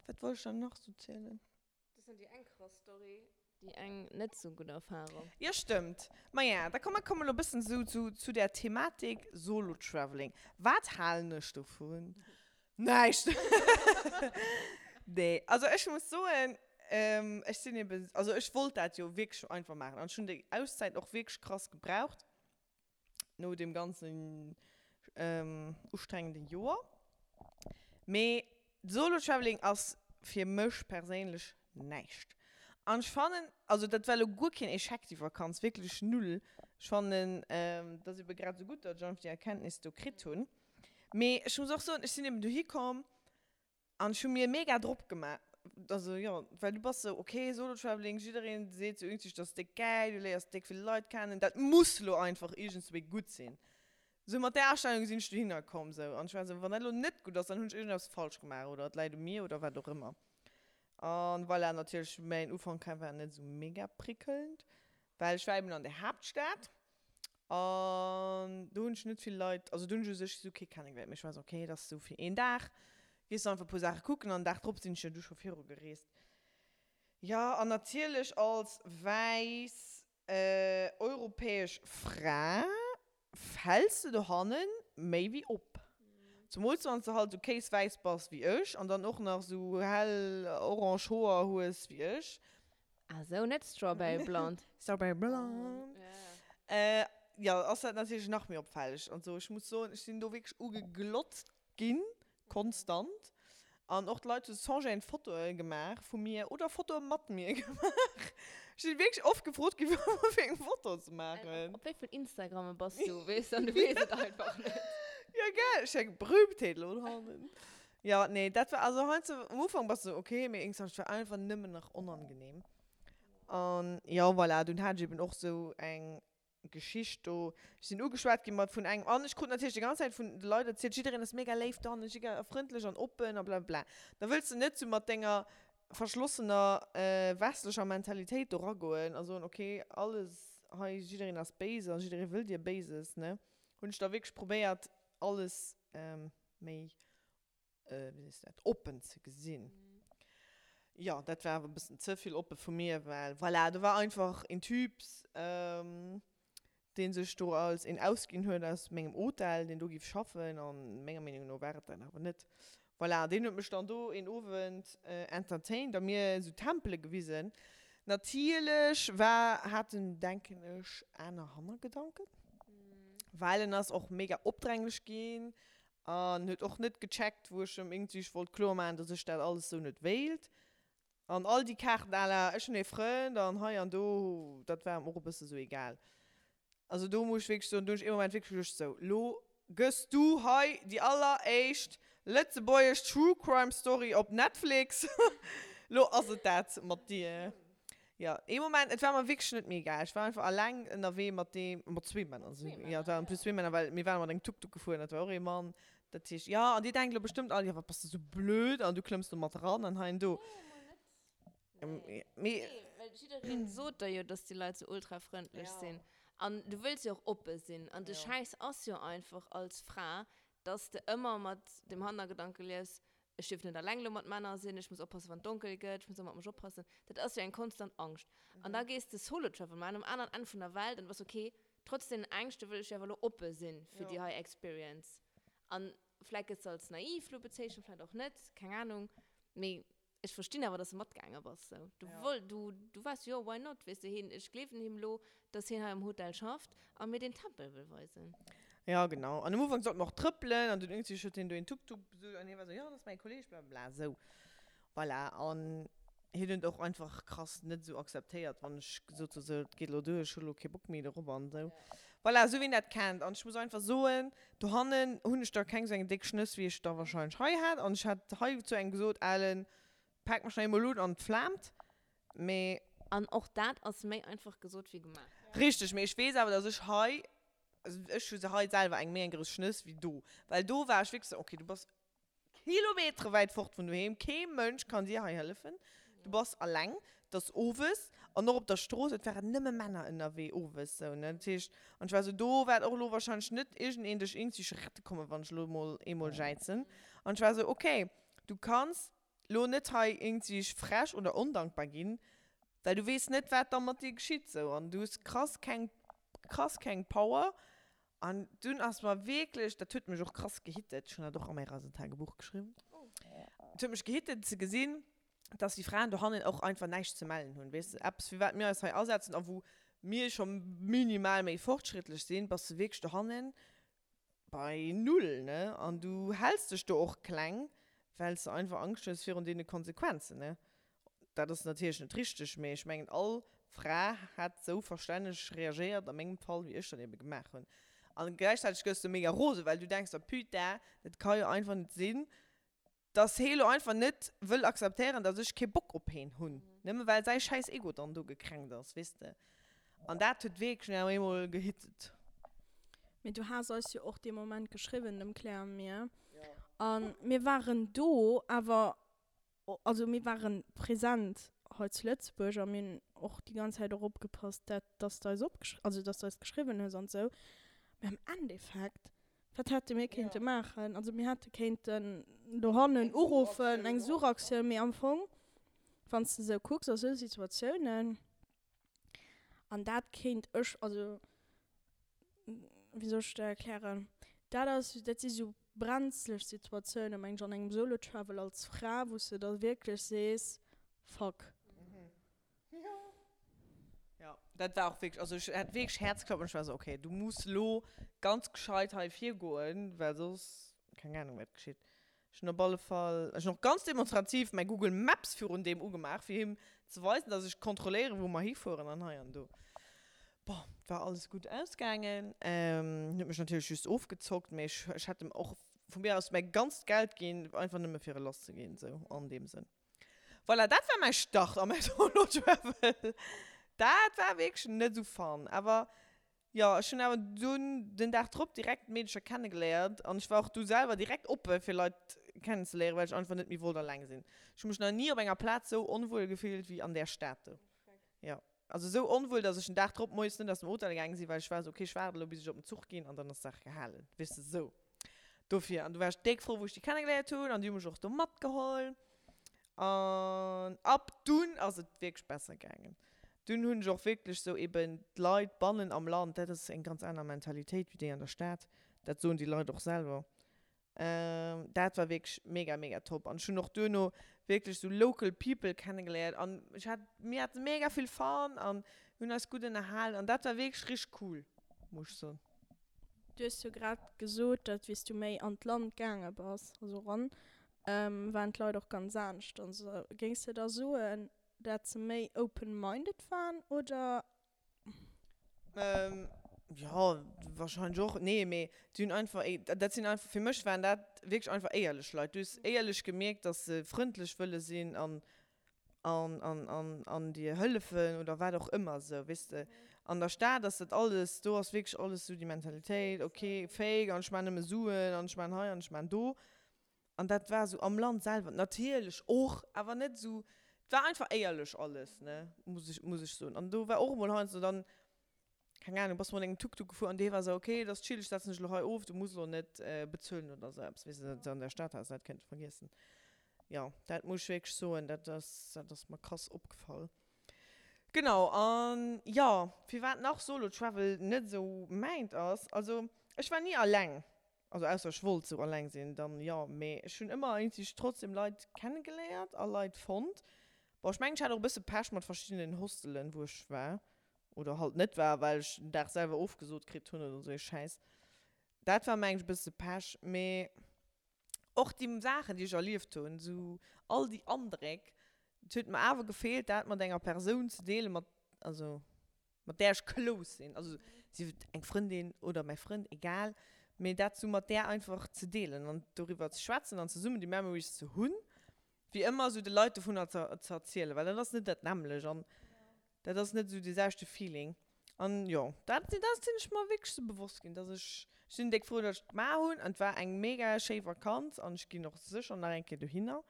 wat wollt ech dann nach sou zielen? Dat ass déi eng krass Story, déi eng net sou gutt Erfahrung. Jo, stëmmt. Maja, da komm, mer kommen elo e bëssen sou zu, zu där Thematik Solo-Traveling. Wat halen ech dovun? Näischt! Nee, also ech muss soen, ech sinn eben, also ech wollt dat jo wierklech einfach maachen an ech hunn déi Auszäit och wierklech krass gebraucht no deem ganzen ustrengende Joer. Mee Solo-Traveling ass fir mech perséinlech näischt. An ech fannen, also dat war elo guer keen Echec déi Vakanz, wierklech null. Ech fannen, et ass ebe grad esou gutt, datt ech einfach déi Erkenntnis do kritt hunn. Mee ech muss och soen, ech sinn eben dohi komm an ech hu mir mega drop gemaach. Also jo, well du bass sou, ok, Solo Traveling, jiddereen seet sou iergendwéi, dat ass déck gäil, du léiers déck vill Leit kennen, dat muss lo einfach iergendswéi gutt sinn. Sou mat där Astellung sinn ech dohinner komm sou an ech war sou, wann dat lo net gutt ass, dann hunn ech iergendeppes falsch gemaach oder et läit u mir oder wat och ëmmer. An voilà, natierlech mäin Ufank war net sou mega prickelnd, well ech war eben an der Haaptstad An do hunn ech net vill Leit, also do hunn ech u sech esou kee kennegeléiert, mee ech war esou, okay, dat ass esou fir een Dag, gees du einfach e puer Saache kucken an den Dag drop sinn ech jo du scho viru gereest. Jo, an natierlech als wäiss europäesch Fra fäls de dohanne méi wéi op. Zemools wann s de halt esou kéiswäiss bass wéi ech an dann och nach esou hell orange Hoer hues wéi ech. Ah sou, net Strawberry Blonde. Strawberry Blonde. Äh, jo, ass dat natierlech nach méi opfälleg an sou. Ech muss soen, ech sinn do wierklech ugeglotzt ginn, konstant. An och d'Leit hu sans gêne Fotoe gemaach vu mir oder Fotoe mat mir gemaach. Ech sinn wierklech oft gefrot ginn, fir eng Foto ze maachen. Op wéi vill Instagramme bass du, weess an du weess et einfach net. Ja, gell? Ech eng Berühmtheet elo hannen. Ja, nee, dat war, also heiansdo, am Ufank bass du esou, okay, mee iergendwann, et war einfach nëmmen nach onangenehm. An jo, voilà, dunn hat ech eben och esou eng Geschicht do. Ech sinn ugeschwat ginn mat vun engem, an ech krut natierlech déi ganz Zäit vun de Leit erzielt, jiddereen ass mega léif dohannen, jiddereen ass frëndlech an oppen a blablabla. Da wëlls de net sou mat denger verschlossener westlecher Mentalitéit do ragoen a soen, okay, alles hei, jiddereen ass béis a jidderee wëll dir Béises, ne? Hunn ech da wierklech probéiert, alles méi, wéi sees de dat, oppen ze gesinn. Jo, dat war awer e bëssen ze vill oppe vu mir, well voilà, do war einfach een Typ, dee sech do als een ausginn huet aus mengem Hotel, deen do géif schaffen, a menger Meenung no war et dat awer net. Voilà, deen huet mech dann do een Owend entertained a mir esou Tempele gewisen. Natierlech war, hat en, denken ech, aner Hannergedanken, well en ass och mega opdränglech ginn an huet och net gecheckt, wou ech em iergendwéi wollt kloer maachen, dass ech dat alles esou net wéilt. An all déi Kaarten à la ech hunn ee Frënd an hei an do, dat war em och e bësse sou egal. Also do muss ech wierklech soen, do hunn ech ee Moment wierklech geduecht, sou, lo gëss du hei déi alleréischt lëtzebuergesch True Crime Story op Netflix, lo ass et dat mat dir. Jo, ee Moment, et war mer wierklech net méi egal. Ech war einfach alleng ënnerwee mat deem, mat zwee Männer, jo, et waren en plus zwee Männer, well mir ware mat engem Tuk-Tuk gefuer an dat war och ee Mann. Dat heescht, jo, an dir denkt elo bestëmmt all, jo, wat bass de sou blöd an du klëmms do mat eran an hei an do. Nee, mol net. Nee, nee, well jiddereen sot der jo, dass déi Leit sou ultra frëndlech sinn. An du wëlls jo och oppe sinn. An de Schäiss ass jo einfach als Fra, dass de ëmmer mat dem Hannergedanke liefs, ech dierf net alleng elo mat Männer sinn, ech muss oppassen, wann et donkel gëtt, ech muss ëmmer op mech oppassen. Dat ass jo eng konstant Angscht. An da gees de Solo Travel maachen um aneren Enn vun der Welt an du bass okay, Trotz deenen Ängschte wëll ech jo awer elo oppe sinn fir déi hei Experience. An vläit gëtt se als naiv lo bezeechent, vläit och net, keng Ahnung. Mee ech verstinn awer, dass de matgaange bass. Sou, du woll, du, du waars jo, why not, weess de, hien, ech gleewen him elo, dass hien hei am Hotel schafft a mir deen Tempel wëll weisen. Ja, genau. An am Ufank sollte mer och trëppelen an dunn iergendwéi huet hien do een Tuk-Tuk besucht an hie war sou, jo, dat ass mäi Kolleeg, blablabla, sou. Voilà, an hien huet och einfach krass net esou akzeptéiert, wann ech gesot hu sou, et geet elo duer, ech hu elo kee Bock méi dorop an esou. Voilà, esou wéi een dat kennt. An ech muss einfach soen, dohannen hunn ech da keng esou eng déck Schnëss, wéi ech da wahrscheinlech hei hat. An ech hat hei zu engem gesot, Alen, pak mech nach eemol un an et flaamt. Mee. An och dat ass méi einfach gesot wéi gemaach. Richteg, mee ech weess awer, dass ech hei, also ech hu hei selwer eng méi eng grouss Schnëss wéi do. Well do war ech wierklech esou, okay, du bass Kilometere wäit fort vun doheem, kee Mënsch kann dir hei hëllefen, du bass alleng, et ass owes an och op der Strooss, et waren nëmme Männer ënnerwee owes sou ne, dat heescht, an ech war sou, do waert och elo wahrscheinlech net iergendeen dech iergendwéi rette kommen, wann ech elo mol eemol jäizen. An ech war sou, okay, du kanns elo net hei iergendwéi frech oder ondankbar ginn, well du weess net wat da mat dir geschitt sou an du hues krass keng krass keng Power An dunn ass mer wierklech, dat huet mech och krass gehittet, ech hunn dat och a mäi Reisetagebuch geschriwwen, et huet mech gehittet ze gesinn, dass déi Fraen dohannen och einfach näischt ze mellen hunn, weess de, eppes fir wat mir eis hei asetzen a wou mir scho minimal méi fortschrittlech sinn, bass de wierklech dohannen bei null, ne, an du häls dech do och kleng, well s de einfach Angscht hues virun deene Konsequenzen, ne. Dat ass natierlech net richteg, mee ech mengen all Fra hätt esou verstänneg reagéiert a mengem Fall, wéi ech dat ebe gemaach hunn. A gläichzäiteg gëss de mega rose, well du denks der, Putain, dat ka jo einfach net sinn, dass hee lo einfach net wëll akzeptéieren, dass ech kee Bock op heen hunn, nëmme well säi schäiss Ego dann do gekränkt ass, weess de. An dat huet wierklech nach eemol gehittet. Mee du has eis jo och dee Moment geschriwwen, dem Claire a mir, a mir waren do, awer Also mir waren präsent hei zu Lëtzebuerg a mir hunn och déi ganz Zäit och opgepasst, dat dass de eis opgeschri also dass de eis geschriwwen hues an esou. Mee am Endeffekt, wat hätte mir kéinte maachen? Also mir hätte kéinten dohannen uruffen, eng Suchaktioun, mee am Fong, wann s de esou kucks a sou Situatiounen, An dat kéint ech, also wéi soll ech dat erklären, dat ass, dat si sou brenzlech Situatiounen, meng ech, an engem Solo-Travel als Fra, wou s de da wierklech sees, Fuck. Jo, dat war och wierklech, also ech hat wierklech Häerzklappen, ech war sou, okay, du muss lo ganz gescheit hei virgoen, well soss, keng Ahnung wat geschitt. Ech hunn op alle Fall, ech hunn och ganz demonstrativ mäi Google Maps virun deem ugemaach, fir him ze weisen, dass ech kontrolléieren, wou mer hifueren an hei an do. Bon, et war alles gutt ausgaangen. Hien huet mech natierlech just ofgezockt, mee ech, ech hätt em och vu mir aus mäi ganzt Geld ginn, einfach nëmme fir e lass ze ginn, sou an deem Sënn. Voilà, dat war mäi Start a mäi Solo Travel. Dat war wierklech net esou fun, awer jo, ech hunn awer dunn den Dag drop direkt Meedecher kennegeléiert an ech war och du selwer direkt oppe fir Leit kennenzeléieren, well ech einfach net méi wollt alleng sinn. Ech hu mech nach ni op enger Plaz sou onwuel gefillt wéi an där Stad do. Jo. Also esou onwuel, dass ech den Dag drop moies net aus dem Hotel gaange sinn, well ech war esou, okay, ech waarde elo bis ech op den Zuch ginn an dann ass d'Saach gehalen. Weess de, esou. Dofir. An du war ech déck frou, wou ech déi kennegeléiert hunn an déi hu mech och do matgeholl. An ab dunn ass et wierklech besser gaangen. Dunn hunn ech och wierklech esou eben d'Leit bannen am Land, dat ass eng ganz aner Mentalitéit wéi déi an der Stad, dat soen déi Leit och selwer. Dat war wierklech mega mega top an ech hunn och duerno wierklech sou local people kennegeléiert an ech hat, mir hate mega vill Fun an hunn eis gutt ënnerhalen an dat war wierklech richteg cool, muss ech soen. Du hues jo grad gesot, datt wéi s du méi an d'Land gaange bass, also eran, waren d'Leit och ganz anescht. Also géings de da soen, dat se méi open-minded waren oder Ähm, jo, wahrscheinlech och. Nee, mee déi hunn einfach, dat sinn einfach, fir mech waren dat wierklech einfach éierlech Leit. Du hues éierlech gemierkt, dass se frëndlech wëlle sinn an, an, an, an, an dir hëllefen oder wat och ëmmer esou, weess de. An der Stad ass dat alles, do ass wierklech alles esou déi Mentalitéit, okay, fake an ech maachen nëmme Suen an ech maachen hei an ech maachen do. An dat war esou am Land selwer natierlech och, awer net esou, et war einfach éierlech alles, ne, muss ech, muss ech soen. An do war och emol heiansdo dann, keng Ahnung, bass mat engem Tuk-Tuk gefuer an dee war esou, okay, et ass chill, ech setzen dech elo hei of, du muss elo net bezuelen oder esou eppes, weess de, dat an der Stad has de dat kënnte vergiessen. Jo, dat muss ech wierklech soen, dat ass, dat ass mer krass opgefall. Genau, an jo, firwat nach Solo Travel net esou mäint ass, also ech war ni alleng. Also ausser ech wollt sou alleng sinn, dann jo, mee ech hunn ëmmer iergendwéi trotzdem Leit kennegeléiert a Leit fonnt. Bon, ech mengen ech hat och e bësse Pech mat verschiddenen Hostelen wou ech war oder halt net war, well ech den Dag selwer ofgesot kritt hunn oder sou ee Schäiss. Dat war mengen ech e bësse Pech, mee och déi Saachen déi ech erlieft hunn, sou all déi Andréck, et huet mer awer gefeelt dat mat enger Persoun ze deelen, mat also mat där ech close sinn, also sief et eng Frëndin oder mäi Frënd, egal, mee dat sou mat där einfach ze deelen an doriwwer ze schwätzen an zesummen déi Memories ze hunn, wéi ëmmer sou de Leit dovunner ze ze erzielen, well dat ass net dat nämmlecht an dat ass net sou dee selwechte Feeling. An jo, dat dat sinn ech mer wierklech sou bewosst ginn, dass ech, ech sinn déck frou, dass ech et gemaach hunn an et war eng mega schéi Vakanz an ech ginn och sécher nach eng Kéier dohinner.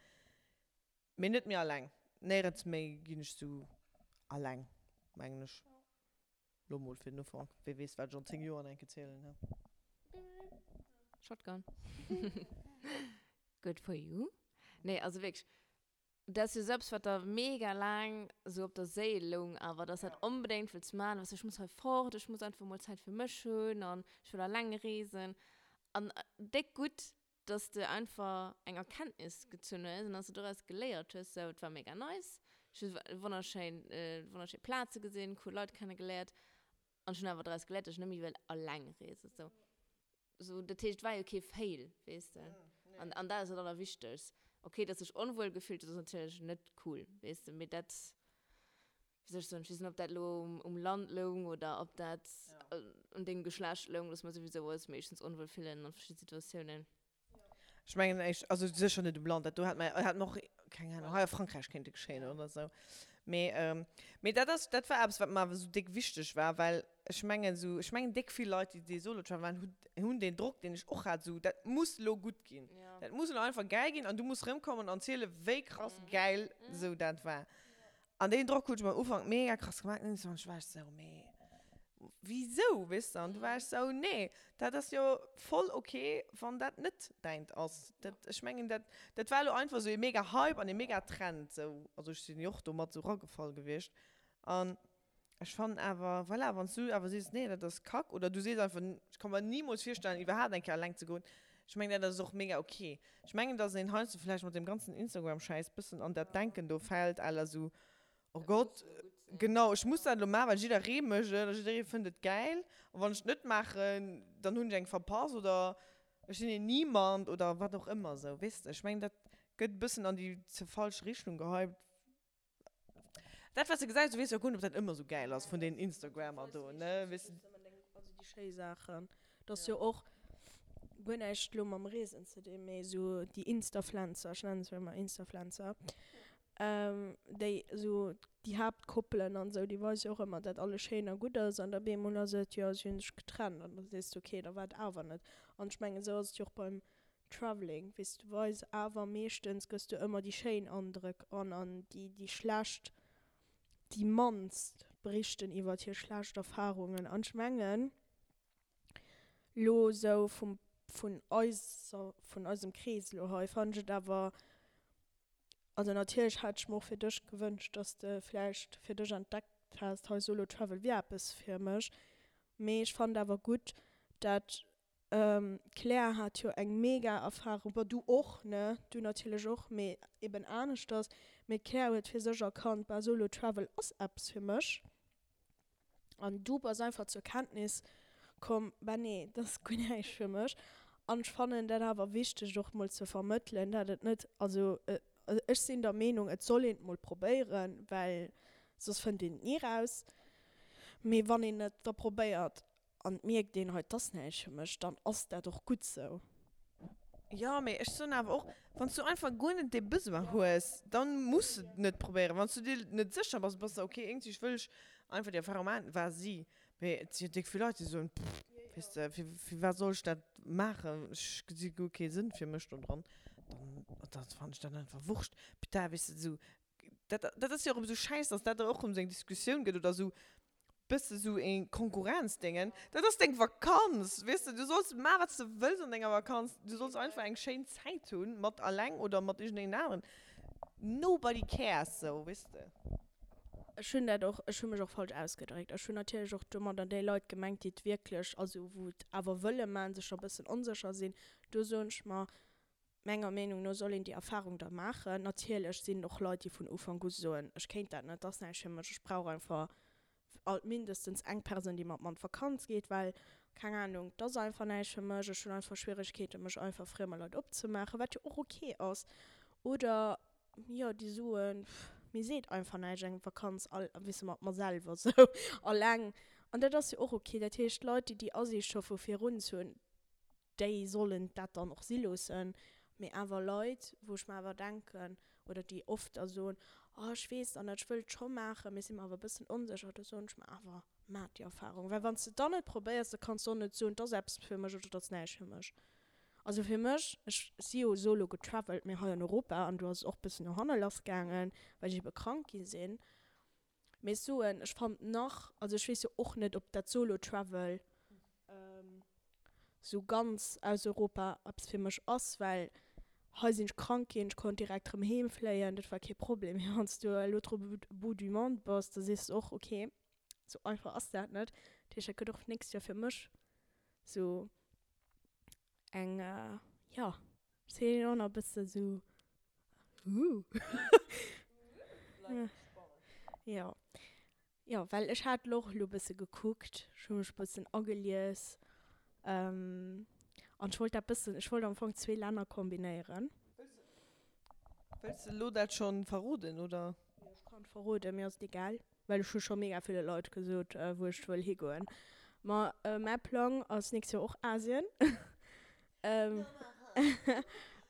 Mee net méi alleng. Néierens méi ginn ech sou alleng, mengen ech. Lo mol fir den Ufank. Wee weess, wat ech an 10 Joer nach eng Kéier zielen, he? Shotgun. Good for you. Nee, also wierklech, dat ass jo sou eppes, wat der mega laang sou op der Séil loung awer, dass dat onbedéngt wëlls maachen, weess du, ech muss hei fort, ech muss einfach mol Zäit fir mech hunn an ech wëll alleng reesen. An déck gutt, dass de einfach eng Erkenntnis gezunn hues an dass de doraus geléiert hues, sou, et war mega nice, ech hu wonnerschéin, wonnerschéi Plaze gesinn, cool Leit kennegeléiert an ech hunn awer doraus geléiert, dass ech net méi wëll alleng reesen, sou. Sou, dat heescht, et war jo kee Fail, weess de. An, an dat ass dat Allerwichtegst. Okay, dass de dech onwuel gefillt hues, ass natierlech net cool, weess de, mee dat, wéi soll ech soen, ech weess net, ob dat elo um Land loung oder ob dat un dengem Geschlecht loung, dass mer souwisou eis meeschtens onwuel fillen an verschidde Situatiounen. Ech mengen éischt, also sécher net um Land, dat do hätt mer, hätt mer och, keng Ahnung, hei a Frankräich kéinte geschéien oder esou. Mee, mee dat ass, dat war eppes, wat mer awer esou déck wichteg war, well ech mengen esou, ech mengen déck vill Leit, déi dee Solo-Travel maachen, hunn, hunn deen Drock, deen ech och hat, esou, dat muss elo gutt ginn, dat muss elo einfach gäil ginn an du muss erëmkommen an zielen, wéi krass gäil esou dat war. An deen Drock huet ech mer am Ufank mega krass gemaach. An ech war esou, mee wisou, weess de? An du war ech esou, nee, dat ass jo voll ok, wann dat net däint ass. Dat, ech mengen, dat, dat war elo einfach esou ee mega Hype an ee mega Trend esou. Also ech sinn jo och do mat esou ragefall gewiescht. An ech fannen awer, voilà, wann s du awer sees, nee, dat ass Kack, oder du sees einfach, ech ka mer nimools virstellen, iwwerhaapt eng Kéier eleng ze goen, ech mengen, dat ass och mega ok. Ech mengen, dass een heiansdo vläicht mat deem ganzen Instagram-Schäiss bëssen an dat Denken do fält à la sou, oh Gott, genau, ech muss dat elo maachen, well jidderee mécht et a jidderee fënnt et gäil a wann ech et net maachen, dann hunn ech eng verpasst oder ech sinn een Niemand oder wat och ëmmer sou, weess de. Ech mengen, dat gëtt e bëssen an déi ze falsch Richtung gehypt. Dat wat s de gesäis, du weess jo guer net, ob dat ëmmer esou gäil ass vun deenen Instagrammer do, ne, weess de. Also déi schéi Saachen, dat ass jo och guer näischt elo mam Reesen ze dinn, mee esou déi Instafluencer, ech nennen se ëmmer Instafluencer, déi esou déi Haaptkoppelen an esou, déi weise jo och ëmmer, dat alles schéin a gutt ass an da bemol ass et, jo si hunn sech getrennt an da sees de, okay, da war et awer net. An ech mengen, esou ass et jo och beim Traveling, weess du weis awer meeschtens gëss du ëmmer déi schéin Andrëck an an déi déi schlecht déi mannst berichten iwwert hir schlecht Erfahrungen an ech mengen lo sou vum vun eiser vun eisem Krees lo hei fannen ech et awer also natierlech hätt ech mer och fir dech gewënscht dass de vläicht fir dech entdeckt häss hei Solo Travel wier eppes fir mech mee ech fannen awer gutt dat D'Claire hat jo eng mega Erfahrung, bon du och ne, du natierlech och, mee eben aneschters, mee d'Claire huet fir sech erkannt, bah Solo Travel ass eppes fir mech an du bass einfach zur Kenntnis komm, bah nee, dat ass guer näischt fir mech an ech fannen dat awer wichteg och mol ze vermëttelen, dat et net, also ech sinn der Meenung et soll een et mol probéieren, well soss fënnt een et ni raus, mee wann een et da probéiert An et mierkt een, hei, 't ass näischt fir mech, dann ass dat och gutt sou. Jo, mee ech soen awer och, wann s du einfach guer net dee Besoin hues, dann muss de et net probéieren. Wann s du dir net sécher bass, bass de ok, iergendwéi wëll ech einfach déi Erfahrung maachen, vas-y. Mee et si jo déck vill Leit, déi soen, pff, weess de, fir firwat soll ech dat maachen, ech gesi guer kee Sënn fir mech do dran. Dann, dann fannen ech dat einfach wurscht. Putain, weess de, esou, dat, dat ass jo och erëm esou schäiss, dass dat och erëm esou eng Diskussioun gëtt oder esou bësse sou ee Konkurrenzdéngen, dat ass deng Vakanz, weess de, du solls maachen, wat s de wëlls an denger Vakanz, du solls einfach eng schéin Zäit hunn, mat alleng oder mat iergendengem aneren, nobody cares, sou, weess de. Ech hunn dat och, ech hu mech och falsch ausgedréckt. Ech hunn natierlech och domadder déi Leit gemengt, déi et wierklech, also wou et awer wëlle maachen, sech da bëssen onsécher sinn. Do soen ech mer, Menger Meenung no soll een déi Erfahrung da maachen. Natierlech sinn och Leit, déi vun Ufank u soen, ech kéint dat net, dat ass näischt fir mech, ech brauch einfach alt mindestens eng Persoun, déi mat mer an d'Vakanz geet, well, keng Ahnung, et ass einfach näischt fir mech, ech hunn einfach Schwieregkeeten, mech einfach friemer Leit opzemaachen, wat jo och ok ass. Oder, jo, déi soen, pff, mir seet einfach näischt eng Vakanz all, weess de, mat mer selwer sou, alleng. An dat ass jo och ok. Dat heescht, Leit, déi déi Asiicht scho vu virun hunn, déi sollen dat dann och si loossen, mee awer Leit, wou ech mer awer denken, oder déi oft da soen, oh ech weess dann net, ech wëll et scho maachen, mee si mer awer e bëssen onsécher, do soen ech mer awer, maach déi Erfahrung, well wann s de et dann net probéiers, da kanns de och net soen, et ass eppes fir mech oder et ass näischt fir mech. Also fir mech, ech si jo solo getravelt, mee hei an Europa, an do ass et och e bëssen no hanne lass gaangen, well ech ebe krank gi sinn. Mee ech soen, ech fand nach, also ech weess jo och net, ob dat Solo Travel sou ganz aus Europa eppes fir mech ass, well hei sinn ech krank ginn, ech konnt direkt rëm heem fléien, dat war kee Problem. Mee wann s du à l'autre bout du monde bass, da sees de och, ok, sou einfach ass dat net. Dat heescht, dat gëtt och d'nächst Joer fir mech sou eng, jo, ech sinn och nach e bësse sou Huh. Jo. Jo, well ech hat lo och lo bësse gekuckt, ech hu mech bëssen agelies, an ech wollt dat bëssen, ech wollt am Fong zwee Länner kombinéieren. Wëlls de lo dat schonn verroden, oder? Jo, ech kann et verroden, mir ass et egal. Well ech hu scho mega ville Leit gesot, wou ech wëll higoen. Ma mäi Plang ass nächst Joer och Asien.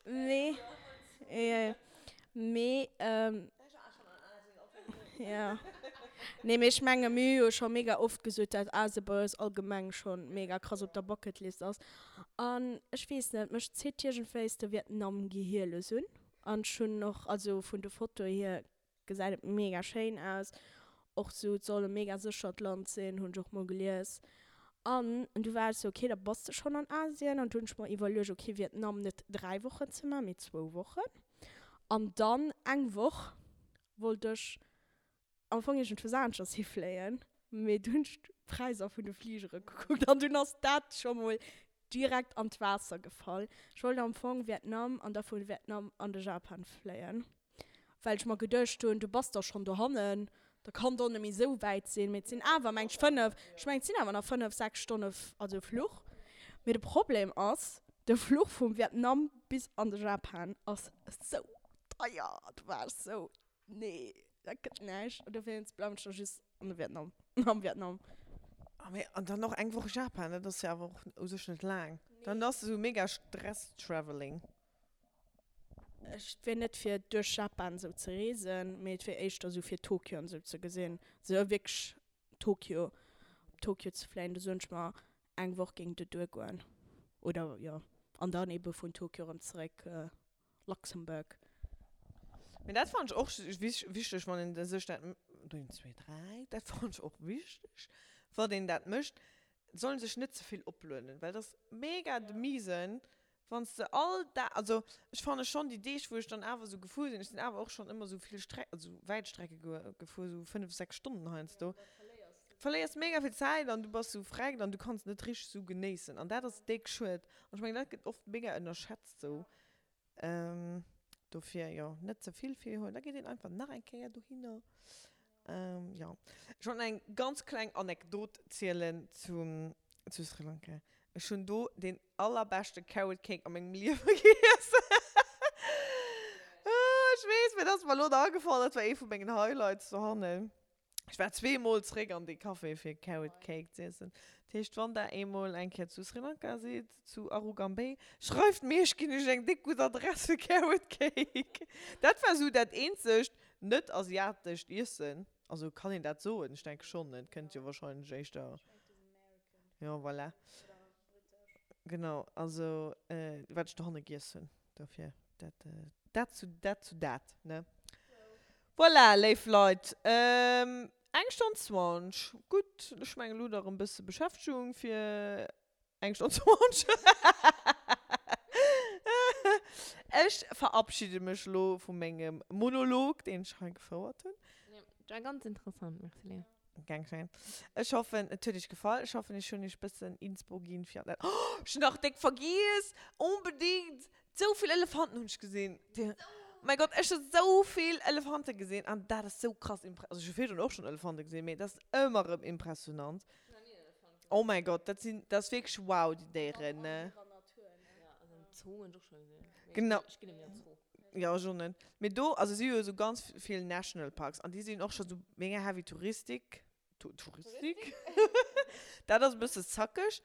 Mee, mee, jo. Nee, mee ech menge mir hu jo scho mega oft gesot, dat Asien bei eis allgemeng scho mega krass op der Bucketlist ass. An ech weess net, mech zitt iergendwéis de Vietnam gehierlos un. An ech hunn och, also vun de Fotoe hier gesäit et mega schéin aus. Och sou, et soll e mega séchert Land sinn, hunn ech och mol gelies. An du war ech sou, ok, da bass de schonn an Asien. An du hunn ech mer iwwerluecht, ok, Vietnam net 3 Wochen ze maachen, mee zwou Wochen. An dann eng Woch wollt ech am Fong iergendwou aneschters hifléien, mee du hunn ech d'Präisser vun de Fligere gekuckt an dunn ass dat scho mol direkt an d'Waasser gefall. Ech wollt am Fong Vietnam an da vu Vietnam an de Japan fléien. Well ech mer geduecht hunn, du bass da schonn dohannen, da kann et och net méi esou wäit sinn. Mee et sinn awer, meng ech, 5, ech mengen et sinn awer nach 5, 6 Stonne, also Fluch. Mee de Problem ass, de Fluch vum Vietnam bis an de Japan ass esou deier. Do war ech esou, nee. Dat gëtt näischt. An dowéinst bleiwen ech da just an de Vietnam, am Vietnam. Ah mee, an dann och eng Woch Japan, dat ass jo awer och u sech net laang. Dann ass esou mega Stress-Travelling. Ech wier net fir duerch Japan esou ze reesen, mee et wier éischter esou fir Tokio an esou ze gesinn. Esou wierklech Tokio, op Tokio ze fléien, do soen ech mer eng Woch géing do duergoen. Oder jo, an dann ebe vun Tokio erëm zeréck Luxembourg. Mee dat fannen ech och wichteg, wann een sech dat, een, zwee, dräi, dat fannen ech och wichteg, wann een dat mécht, soll een sech net ze vill oplueden, well dat ass mega de Misen, wann s de all Dag, also ech fanne schonn déi Deeg, wou ech dann awer esou gefuer sinn, ech sinn awer och schonn ëmmer esou vill Streck, also wäit Strecke gefuer, esou 5, 6 Stonnen heiansdo, verléiers mega vill Zäit an du bass esou vreckt an du kanns net richteg esou genéissen an dat ass déck schued an ech mengen dat gëtt oft mega ënnerschätzt esou. Dofir, jo, net ze vill virhuelen, da geet een einfach nach eng Kéier dohinner. Jo, ech wollt nach eng ganz kleng Anekdot zielen zu, zu Sri Lanka. Ech hunn do deen allerbeschte Carrot Cake a mengem Liewe giess. Ech weess, mee dat ass mer elo nach agefall, dat war ee vu mengen Highlights dohannen. Ech war zweemol zréck an dee Café fir Carrot Cake z'iessen. Dat heescht, wann der eemol eng Kéier zu Sri Lanka sidd, zu Arugam Bay, schreift mir, ech ginn iech eng déck gutt Adress fir Carrot Cake. Dat war esou dat eenzegt net-asiatescht Iessen. Also kann een dat soen? Ech denke schonn, et kënnt jo wahrscheinlech éischter. Jo, voilà. Genau, also wat ech dohanne giess hunn, dofir dat, dat zu dat zu dat, ne? Voilà, léif Leit, eng Stonn 20, gutt, ech mengen elo hutt der erëm e bësse Beschäftegung fir eng Stonn 20. Ech verabschide mech elo vu mengem Monolog, deen ech hei gefouert hunn. Dat war ganz interessant, merci Léa. Gern geschehen. Ech hoffen, et huet iech gefall. Ech hoffen, ech hunn iech bëssen Inspo ginn fir an dat. Oh, ech hunn nach déck vergiess! Onbedingt! Sou vill Elefanten hunn ech gesinn. Oh mäi Gott, ech hu sou vill Elefante gesinn an dat ass sou krass impre-, also ech hu virdrun och schonn Elefante gesinn, mee dat ass ëmmer erëm impressionant. Oh mäi Gott, dat sinn, dat ass wierklech wow, déi Déieren, ne? Genau. Jo, ech och net. Mee do, also si hu jo esou ganz vill National Parks an déi sinn och scho sou mega heavy Touristik, Touristik? Dat ass e bësse zackeg.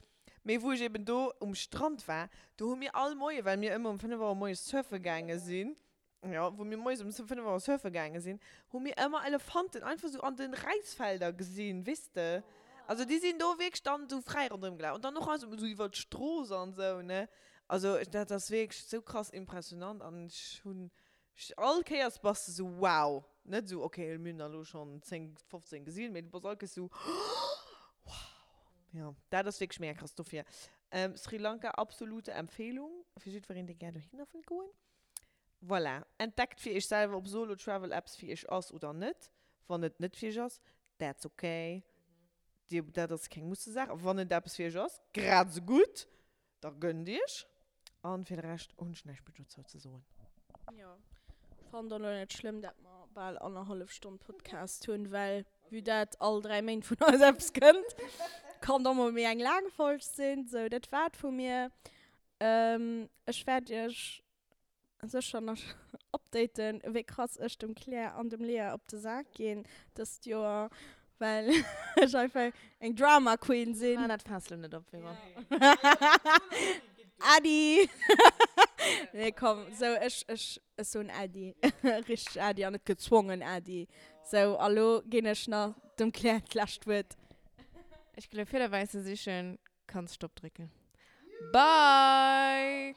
Mee wou ech eben do um Strand war, do hu mir all Moie, well mir ëmmer um 5 Auer moies surfe gaange sinn, jo, wou mir moies um 5 Auer surfe gaange sinn, hu mir ëmmer Elefanten einfach sou an de Räisfelder gesinn, weess de? Also déi sinn do wierklech dann sou fräi ronderëm gelaf an dann och esou iwwer d'Strooss an esou, ne? Also dat ass wierklech sou krass impressionant an ech hunn all Kéiers bass de sou wow, net sou ok mir hunn der elo schonn 10, 15 gesinn, mee du bass all Kéiers sou wow. Jo dat ass wierklech mega krass. Dofir Sri Lanka absolute Empfehlung fir jiddwereen dee gär dohinner wëll goen. Voilà, entdeckt fir iech selwer ob Solo Travel eppes fir iech ass oder net. Wann et net fir iech ass, that's ok, dir dat ass keng Mussesaach. Wann et eppes fir iech ass, grad esou gutt. Da gönnt iech. An fir de Rescht hunn ech näischt méi dozou ze soen. Jo, ech fannen et och net schlëmm dat mer bal annerhallef Stonn Podcast hunn, well vue dat all 3 Méint vun eis eppes kënnt, kann et och mol méi eng laang Folg sinn. Sou, dat war et vu mir. Ech wäert iech sécher nach updaten, wéi krass ech dem Claire an dem Lea op de Sak ginn dëst Joer, well ech einfach eng Drama Queen sinn. Maach dat Faass lo net op, Vero. Äddi! Nee, komm, sou, ech, ech, ech soen Äddi. Richteg Äddi an net gezwongen Äddi. Sou, a lo ginn ech nach dem Claire d'lescht Wuert. Ech ginn lo Fiederwäisse sichen. Kanns Stopp drécken. Bye!